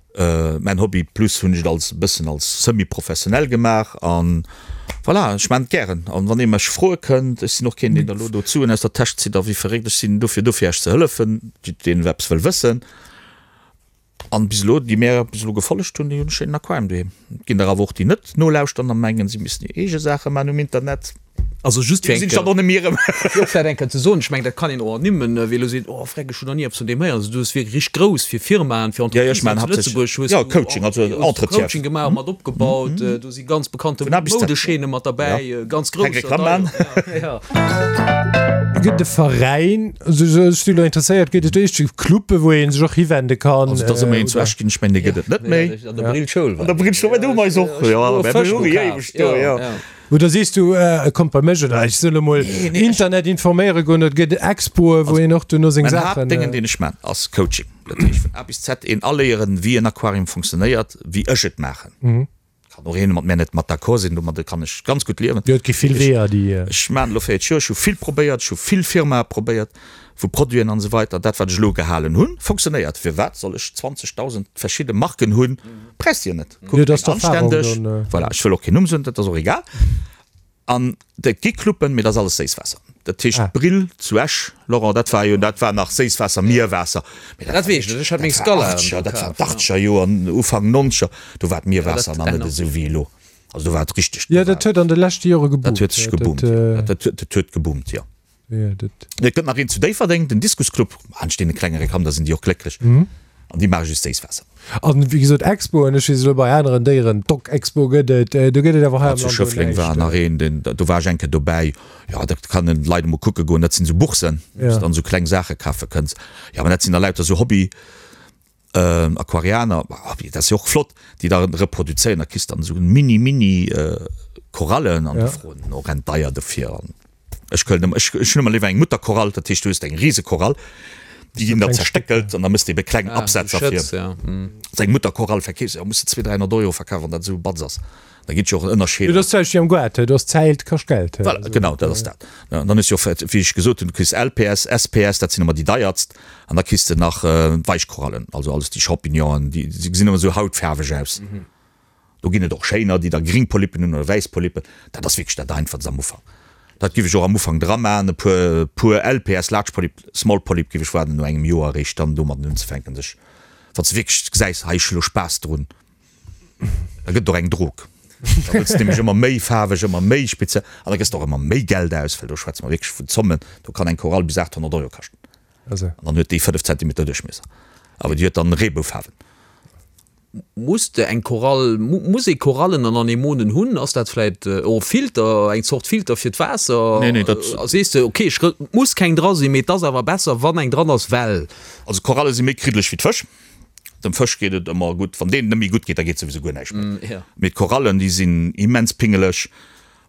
S3: Mäin Hobby plus hunn ech et als e bëssen als semi-professionell gemaach an voilà, ech maan et gären an wann ee mech froe kënnt, ech sinn och keen deen der elo do d'Suen aus der Täsch zitt a wéi verréckt, ech sinn dofir do fir Iech ze hëllefen, deen eppes wëll wëssen an bis elo déi mär bis elo gefollegt hunn, déi hunn e schéinen Aquarium doheem. Et ginn der awer och déi net nolauschteren a mengen si missten hir eege Saache maan um Internet.
S1: Also just fir eng Kéier, eng Kéier ze soen, ech mengen, dat kann een och ernimmen, wie elo seet, oh freck, ech hunn nach ni eppes vun deem héieren. Also du hues wierklech richteg grouss fir Firmaen, fir Entreprisen hei zu Lëtzebuerg hues du och Coaching gemaach, mat opgebaut. Do si ganz bekannte Moudechaîne mat derbäi, ganz grousser
S2: d'ailleurs. Gëtt e Veräin, also ech si elo interesséiert, gëtt et éischt Clube wou ee sech och hiwende kann?
S3: Also et ass ëmmer een zu Esch ginn, ech mengen dee gëtt et net méi.
S1: An der Brillschoul
S3: war. An der Brillschoul war, do hu mer eis och, jo, mer hu éiweg do, jo.
S2: Oder sees du, kommt bei mech oder ech soll emol Internet informéiere goen, et gëtt Expoe wou een och duerno seng
S3: Mäin Saachen. Haaptdéngen deen ech man ass Coaching, dat heescht vun A bis Z een aléieren wéi en Aquarium funktionéiert, wéi ech et maachen. Kann och een mat mär net mat d'accord sinn, domadde kann ech ganz gutt liewen.
S2: Jo et gi vill Weeër déi.
S3: Ech maan elo 40 Joer, ech hu vill probéiert, ech hu vill Firmae probéiert vu Produiten an esou weiter, dat wat ech elo gehalen hunn funktionéiert. Firwat soll ech 20.000 verschidde Marken hunn, brauchs de jo net.
S2: Kuckt een anständeg,
S3: voilà, ech wëll och keen Numm soen, dat ass och egal. An et gi Cluben, mee dat ass alles Séisswaasser. Dat heescht d'Brill zu Esch, Laurent, dat war jo, dat war nach Séisswaasser, Mierwaasser.
S1: Mee dat weess ech net, ech hat meng
S3: Scala do kaf. Dat war d'Achtzeger Joer, Ufank Nonzeger, do war d'Mierwaasser nach net esou wéi elo. Also do war et richteg.
S2: Jo, dat huet an de leschte Jore
S3: geboomt. Dat huet sech geboomt, jo. Dat huet geboomt, jo. Et gëtt nach een zu Déifferdeng, den Diskusclub. Laanscht deene klengere Kanner sinn déi och glécklech. An déi maache just Séisswaasser.
S2: An wéi gesot Expoen, ech weess elo bei aneren Déieren, d'Dog-Expo gëtt et, do gëtt et awer hei am
S3: Land Zu Schëffleng war nach een, deen, do war ech eng Kéier dobäi. Jo, da kann een d'Leit emol kucke goen. Dat sinn esou Boursen, wou s de dann esou kleng Saache kafe kënns. Jo, mä dat sinn da lauter esou Hobby. Aquarianer, dat ass jo och flott, déi da reproduzéieren, da kriss de dann esou mini mini Korallen an déi froen och rent deier dofir. An ech këllen ëmmer, ech hunn ëmmer léiwer eng Mutterkorall, dat heescht du hues eng Risekorall, déi ginn da zerstéckelt an da mëss de ebe kleng Absätzer fir seng Mutterkorall verkeefs, jo muss de 200, 300 Euro verkafen, wann dat esou e Batz ass. Da ginn et jo och en Ënnerscheed.
S2: Jo, dat ass d'Zäicht wéi am Goart, do ass Zäit kascht Geld.
S3: Voilà, genau, dat ass dat. An dann hues du jo och, wéi ech gesot hunn, du kriss LPS, SPS, dat sinn ëmmer déi deiertst. An da kriss de nach Weichkorallen, also alles déi Champignonen, déi gesinn ëmmer esou hautfaarweg aus. Do ginn et och schéiner, déi da gring Polypen hunn oder wäiss Polypen. Dat ass wierklech dat Einfachst am Ufank. Dat giff ech och am Ufank dra maachen, e puer, puer LPS, Large Polyp, Small Polyp, giff ech waarden no engem Joer eréischt dann domadden unzefänken, sech, wann s de wierklech gesäis, hei ech hu lo Spaass drun. Da gëtt et och eng Drog. Da wëlls de nämlech ëmmer méi faarweg, ëmmer méi speziell an da gëss de och ëmmer méi Geld aus, well do schwätze mer wierklech vun Zommen, do kann eng Korall bis 800 Euro kaschten.
S2: An
S3: dann huet déi 5 Zentimeter Duerchmiesser, awer déi huet dann Reeboufaarwen.
S1: Muss de eng Korall, muss ee Korallen an Anemonen hunn? Ass dat vläit och e Filter, eng Zort Filter fir d'Waasser?
S3: Nee, nee, dat.
S1: Sees de, ok, ech, et muss keng dra sinn, mee et ass awer besser, wann eng dran ass, well.
S3: Also Koralle si méi kriddeleg wéi d'Fësch. Dem Fësch geet et ëmmer gutt. Wann deenen net méi gutt geet, da geet souwisou guer näischt méi. Mee d'Korallen, déi sinn immens pingeleg.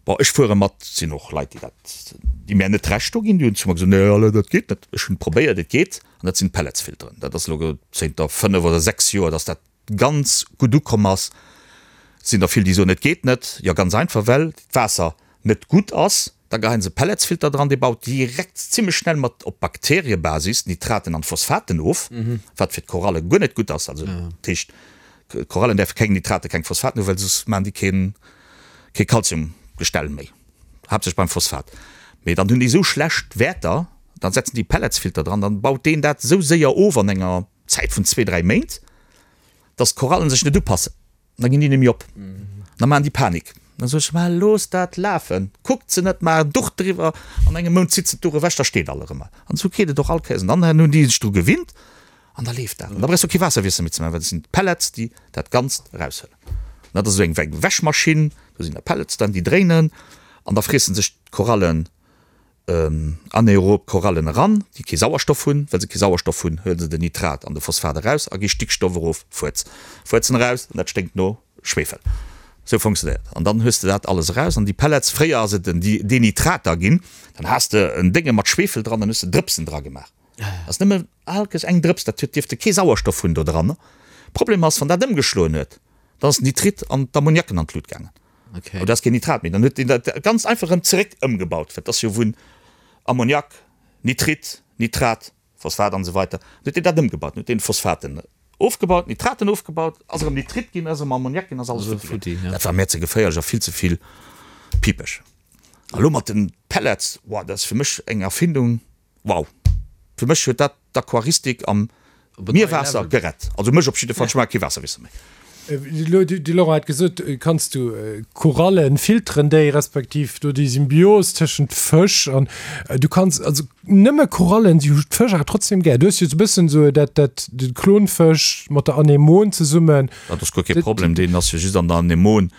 S3: Bon, ech fuere mat, et sinn och Leit, déi dat, déi mär net Recht do ginn, déi hunn zu mer gesot, Nee, Alain, dat geet net. Ech hunn et probéiert, et geet. An dat sinn d'Pelletsfilteren. Dat ass elo zénter 5 oder 6 Joer, dass dat ganz gutt ukomm ass. Et sinn der vill, déi soen, et geet net. Jo, ganz einfach, well d'Waasser net gutt ass. Da geheien se Pelletsfilter dran, dee baut direkt zimmlech schnell mat op Bakteriebasis d'Nitraten an d'Phosphaten of, wat fir d'Koralle guer net gutt ass. Also dat heescht, d'Korallen däerfe keng Nitraten, keng Phosphaten hunn, well soss maachen déi keen, kee Kalziumgestell méi, haaptsächlech beim Phosphat. Mee dann hunn déi esou schlecht Wäerter, dann setzen déi Pelletsfilter dran, dann baut deen dat esou séier of an enger Zäit vun zwee, dräi Méint, dass d'Korallen sech net upassen. Da ginn déi nemmi op. Da maachen déi Panik. Da soe ech, Ma looss dat lafen, kuckt se net, maach en Duch driwwer, an engem Mount zitt se d'Duch ewech, da steet all erëm. An esou geet et och all Kéiers. An dann hunn déi sech dru gewinnt an da leeft dat. An da brauchs du och kee Waasserwiessel méi ze maachen, well et sinn d'Pellets, déi dat Ganzt eraushuelen. An dat ass esou eng wéi eng Wäschmaschinn, do sinn da Pellets dran, déi dréinen an da friessen sech d'Korallen Anaerob Korallen eran, déi kee Sauerstoff hunn. Well se kee Sauerstoff hunn, huele se den Nitrat an de Phosphat eraus a gi Stickstoff erof. Fuerz. Fuerzen eraus an dat sténkt no. Schwefel. Sou funktionéiert. An dann hues de dat alles eraus an déi Pellets, fréier ass et en Denitrater ginn, dann has de en Dénge mat Schwefel dran, dann hues de Drëpsen dra gemaach. Ass nëmme alkes eng Drëps, dat huet dierfte kee Sauerstoff hunn do dran. Problem ass, wann dat ëmgeschloen huet, dann ass den Nitrit an d'Ammoniaken an d'Lut gaangen.
S1: Okay.
S3: Oder ass keen Nitrat méi. Dann huet deen dat ganz einfach erëm zeréck ëmgebaut, well et ass jo vun Ammoniak, Nitrit, Nitrat, Phosphat an esou weiter. Dann huet deen dat ëmgebaut. Dann huet deen Phosphaten ofgebaut, Nitraten ofgebaut, ass erëm Nitrit ginn, ass erëm Ammoniak ginn, ass alles futti ginn. Dat war mär ze geféierlech a vill ze vill pipeg. A lo mat den Pellets, wow, dat ass fir mech eng Erfindung. Wow! Fir mech huet dat d'Aquaristik am Mierwaasser gerett. Also mech op jidde Fall, ech maache kee Waasserwiessel méi.
S2: Elo, de Laurent hat gesot, kanns du Korallen filteren déi, respektiv do déi Symbios tëschent Fësch an du kanns also nëmme Korallen, si hu d'Fësch awer trotzdem gär. Du hues jo esou e bëssen esou dat, dat de Klonfësch mat der Anemon zesummen.
S3: Dat ass guer kee Problem, deen ass jo just an der Anemon.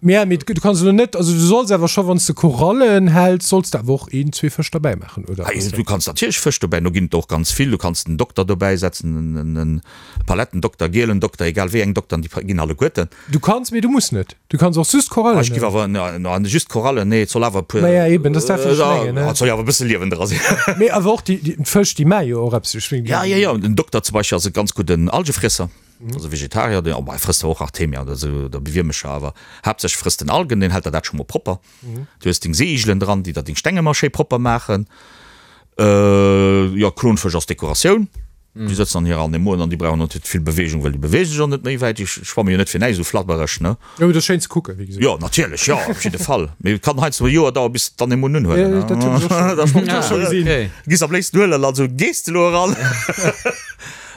S2: Mä mee du kanns elo net, also du solls awer scho wann s de Korallen häls, solls de awer och een, zwee Fësch derbäi maachen, oder?
S3: Hei, du kanns natierlech Fësch dobäi, do ginn et der och ganz vill. Du kanns den Dokter dobäi setzen, en Palettendokter, gielen Dokter, egal wéi eng Dokteren, déi ginn alleguerten.
S2: Du kanns, mee du muss net. Du kanns och just Korallen
S3: Ech giff awer, na just Korallen, nee, et soll awer e puer.
S2: Naja eben, dat ass dat wat ech mengen, ne?
S3: Et soll jo awer e bësse Liewen dra sinn.
S2: Mee awer och déi, déi Fësch, déi maache jo och eppes, ech mengen.
S3: Ja, ja, ja, den Dokter zum Beispill ass e ganz gudden Algefriesser. Also Vegetarier, deen, oh, e frësst zwar och Artemia oder esou oder Wiermecher, awer haaptsächlech frësst en Algen, deen hält der dat scho mol propper. Du hues deng Seeigelen dran, déi der deng Steng ëmmer schéi propper maachen. Jo, Klonfësch ass Dekoratioun, déi sëtzen an hirer Anemone an déi brauchen och net vill Beweegung, well déi beweege sech och net méi wäit, déi schwamme jo net fir näischt esou flabbereg, ne?
S2: Jo, mee dat ass schéin ze kucken, wéi gesot.
S3: Jo, natierlech, jo, op jidde Fall. Mee et kann heiansdo e Joer daueren, bis d'Anemone unhuelen,
S2: ne? Dat hunn ech och scho, dat hunn ech och scho gesinn.
S3: Giss am léifsten huelen, also gees de elo eran.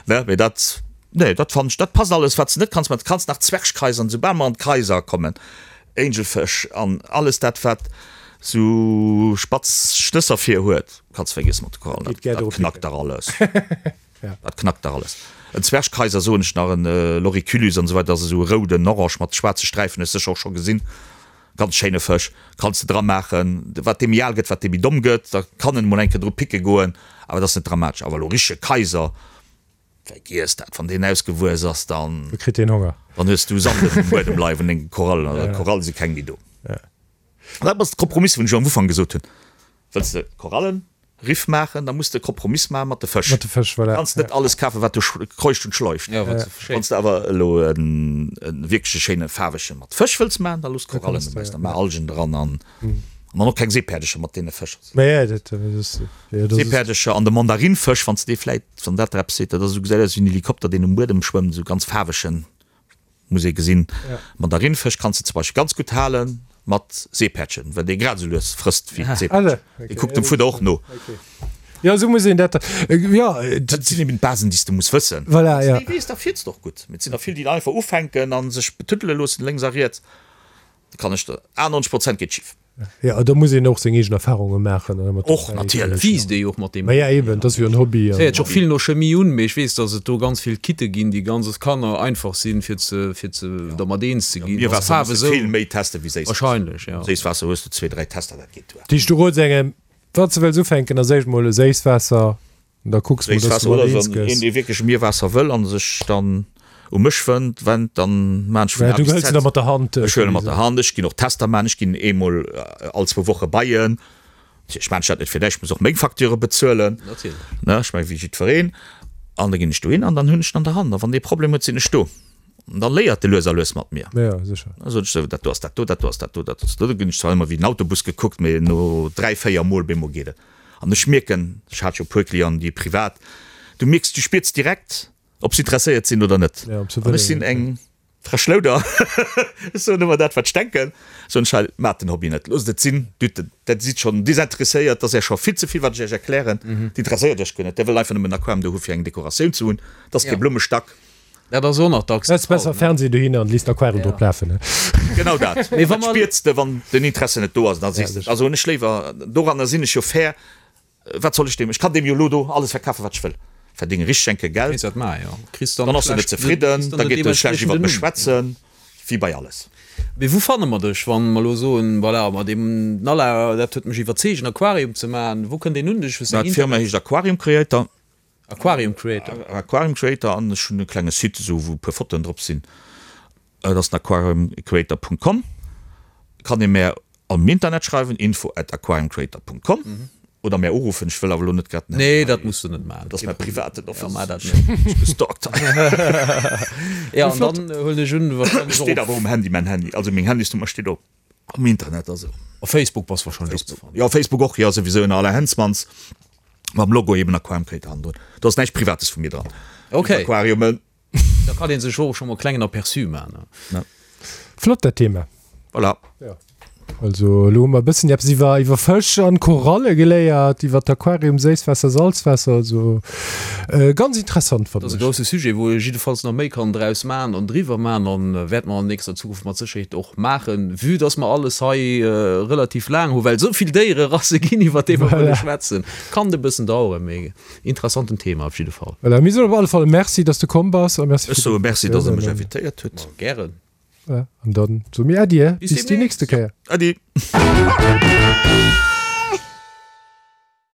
S3: Ne, mee dat, nee, dat fannen ech, dat passt alles. Wat s de net kanns maachen, du kanns nach Zwergkaiser an soubal mer an d'Kaiser kommen, Angelfësch an alles dat, wat sou spatz Schnësser vir huet, kanns vergiessen mat de Korallen, dat, dat knackt der alles. Dat knackt der alles. En Zwergkaiser soen ech nach, en Loriculus an esou weider, dat ass esou e rouden Orange mat schwaarze Sträifen, hues sécher och scho gesinn. Ganz schéine Fësch, kanns de dra maachen. Wat dee méi al gëtt, wat dee méi domm gëtt, da kann en emol eng Kéier dru picke goen, awer dat ass net dramatesch. Awer elo richtege Kaiser, vergiess dat, wann deen ausgewuess ass, dann.
S2: Da kritt deen Honger.
S3: Dann hues du Sand um Buedem leien vun denge Korallen, an d'Koralle si keng méi do. An dat ass de Kompromiss, wou ech am Ufank gesot hunn, Wëlls de Korallen, Riff maachen, da muss de e Kompromiss maache mat de Fësch.
S2: Mat de Fësch, voilà.
S3: Kanns net alles kafen, wat do kreucht und schleucht.
S1: Ja, wat se
S3: Wann s de awer elo e wierkleche schéine faarwege mat Fësch wëlls maachen, da looss Korallen dobäi, da maach Algen dran an dann och keng Seepäerdecher mat deene Fësch.
S2: Ma ja, dat ass,
S3: jo, dat ass. Seepäerdecher an de Mandarinfësch, wann s de dee vläit, wann dat der eppes seet, dat ass esou, gesäit aus wéi en Helikopter, deen um Buedem schwëmmt, esou ganz faarwegen. Muss ee gesinn. Mandarinfësch kanns de zum Beispill ganz gutt hale mat Seepäerdchen, well dee grad esou lues frësst wéi d'Seepäerdchen. Dee kuckt dem Fudder och no.
S2: Jo, esou muss een dat, jo.
S3: Dat sinn eben d'Basen, déi s de muss wëssen.
S2: Voilà, jo.
S3: Wann s de déi weess, da fiers de och gutt. Mee et sinn der vill, déi einfach ufänken a sech betuddele loossen lénks a riets. Da kann ech der, 98 Prozent geet schif.
S2: Jo, do muss een och seng eegen Erfahrunge maachen.
S3: Och natierlech.
S1: Wiisst ee jo och mat deem.
S2: Ma ja, eben, dat ass jo en Hobby.
S1: Et héiert sech och vill no Chemie un, mee ech weess, datt et do ganz vill Kitte ginn, déi ganz als Kanner einfach sinn, fir ze, fir ze dermat eens ze ginn.
S3: Mierwaasser muss de vill méi teste wéi Séisswaasser.
S1: Wahrscheinlech, ja.
S3: Séisswaasser hues de zwee, dräi Tester, dat geet duer.
S2: Dat heescht, du rots engem, wann s de wëlls ufänken, da séich mol e Séisswaasser Da kucks mol, dass
S3: du mat eens gëss. Een, dee wierklech Mierwaasser wëll an sech dann u mech wënnt, wennt, dann maan ech vun
S2: A bis Z. Du hëls en da mat der Hand.
S3: Ech huelen e mat der Hand. Ech ginn och Tester maan. Ech ginn eemol all zwou Woche bei en. Ech maan dat net fir näischt, ech muss och meng Facture bezuelen.
S1: Natierlech.
S3: Ne, ech meng wéi jiddwereen. An da ginn ech dohin an dann hunn ech en an der Hand. A wann dee Problem huet, sinn ech do. An dann léiert e lues a lues mat mir.
S2: Ja, sécher.
S3: Da sot ech sou, dat do ass dat do, dat do ass dat do, dat ass dat do. Da ginn ech zwar ëmmer wéi den Autobus gekuckt, mee no dräi, véier Mol bemol geet et. An ech mierken, ech hat jo e puer Clienten, déi privat, du mierks, du spiers direkt, ob se interesséiert sinn oder net. An ech sinn eng frech Louder, ech soen ëmmer dat, wat ech denken. Soen ech, hei, maacht den Hobby net, loosst et sinn, dat sidd schonn desinteresséiert, dat ass Iech scho vill ze vill, wat ech Iech erklären, dat interesséiert Iech guer net, Dir wëllt einfach nëmmen en Aquarium do hu fir eng Dekoratioun ze hunn, dat ass kee Blummestack.
S1: Dat ass och nach dacks
S2: de Fall. Besser Fernseh dohinner an léisst Aquarium drop lafen, ne?
S3: Genau dat. Mee wa mer. Spiers de, wann den Interesse net do ass, da sees de, also hunn ech léiwer, doranner sinn ech jo fair, wat soll ech deem, ech kann deem jo elo do alles verkafen, wat ech wëll, verdénge richteg enke Geld,
S1: Kéints dat maachen, jo.
S3: Kriss dann ass en net zefridden, da geet e schlecht iwwert mech schwätzen, wéi bei alles.
S1: Mee wou fanne mer dech, wann mer elo soen, voilà, mat deem Nala, dat huet mech iwwerzeegt, en Aquarium ze maachen, wou kënnt een un dech?
S3: Hues de eng D'Firma heescht Aquarium Creator.
S1: Aquarium Creator.
S3: Aquarium Creator an ech hunn e klenge Site esou wou e puer Fotoen drop sinn. Dat ass den aquariumcreator.com. Kann ee mär am Internet schreiwen, info at aquariumcreator.com oder mär uruffen. Ech wëll awer elo net grad
S1: den Handy Nee, dat muss de net maachen.
S3: Dat ass mäi privaten
S1: Office. Ja, maach dat net.
S3: Ech gestalkt hei.
S1: Ja, an dann huelen ech un,
S3: wahrscheinlech och. Steet awer um Handy, mäin Handy. Also meng Handysnummer steet op am Internet, also.
S1: Op Facebook bass wahrscheinlech
S3: och ze fannen. Jo, Facebook och, jo, souwisou ënner Alain Hensmans mam Logo eben Aquarium Creator hannendrun. Do ass näischt Privates vu mir dran.
S1: Okay.
S3: Aquariumen.
S1: Da kann een sech och scho mol klengen Aperçu man.
S2: Ja. Flott dat Thema.
S3: Voilà.
S2: Ja. Also elo hu mer e bëssen eppes iwwer iwwer Fësch an Koralle geléiert, iwwer d'Aquarium, Séisswaasser, Salzwaasser, also äh, ganz interessant
S1: fannen Dat ass e grousse Sujet, wou ee jiddefalls nach méi kann draus man an driwwer man an wäerte mer an nächster Zukunft mat Sécherheet och maachen, vue dass mer alles hei relativ laang hu well esou vill Déiererasse ginn iwwer déi mer wëlle schwätzen. Kann e bëssen daueren, mee Interessanten Thema op jidde Fall.
S2: Voilà, mir soen op alle Fall Merci, dass de komm bass
S3: a Merci Ech soe Merci, dass der mech invitéiert hutt.
S1: Ma gären.
S2: Voilà, an dann soe mir Äddi, bis déi nächste Kéier.
S3: Äddi.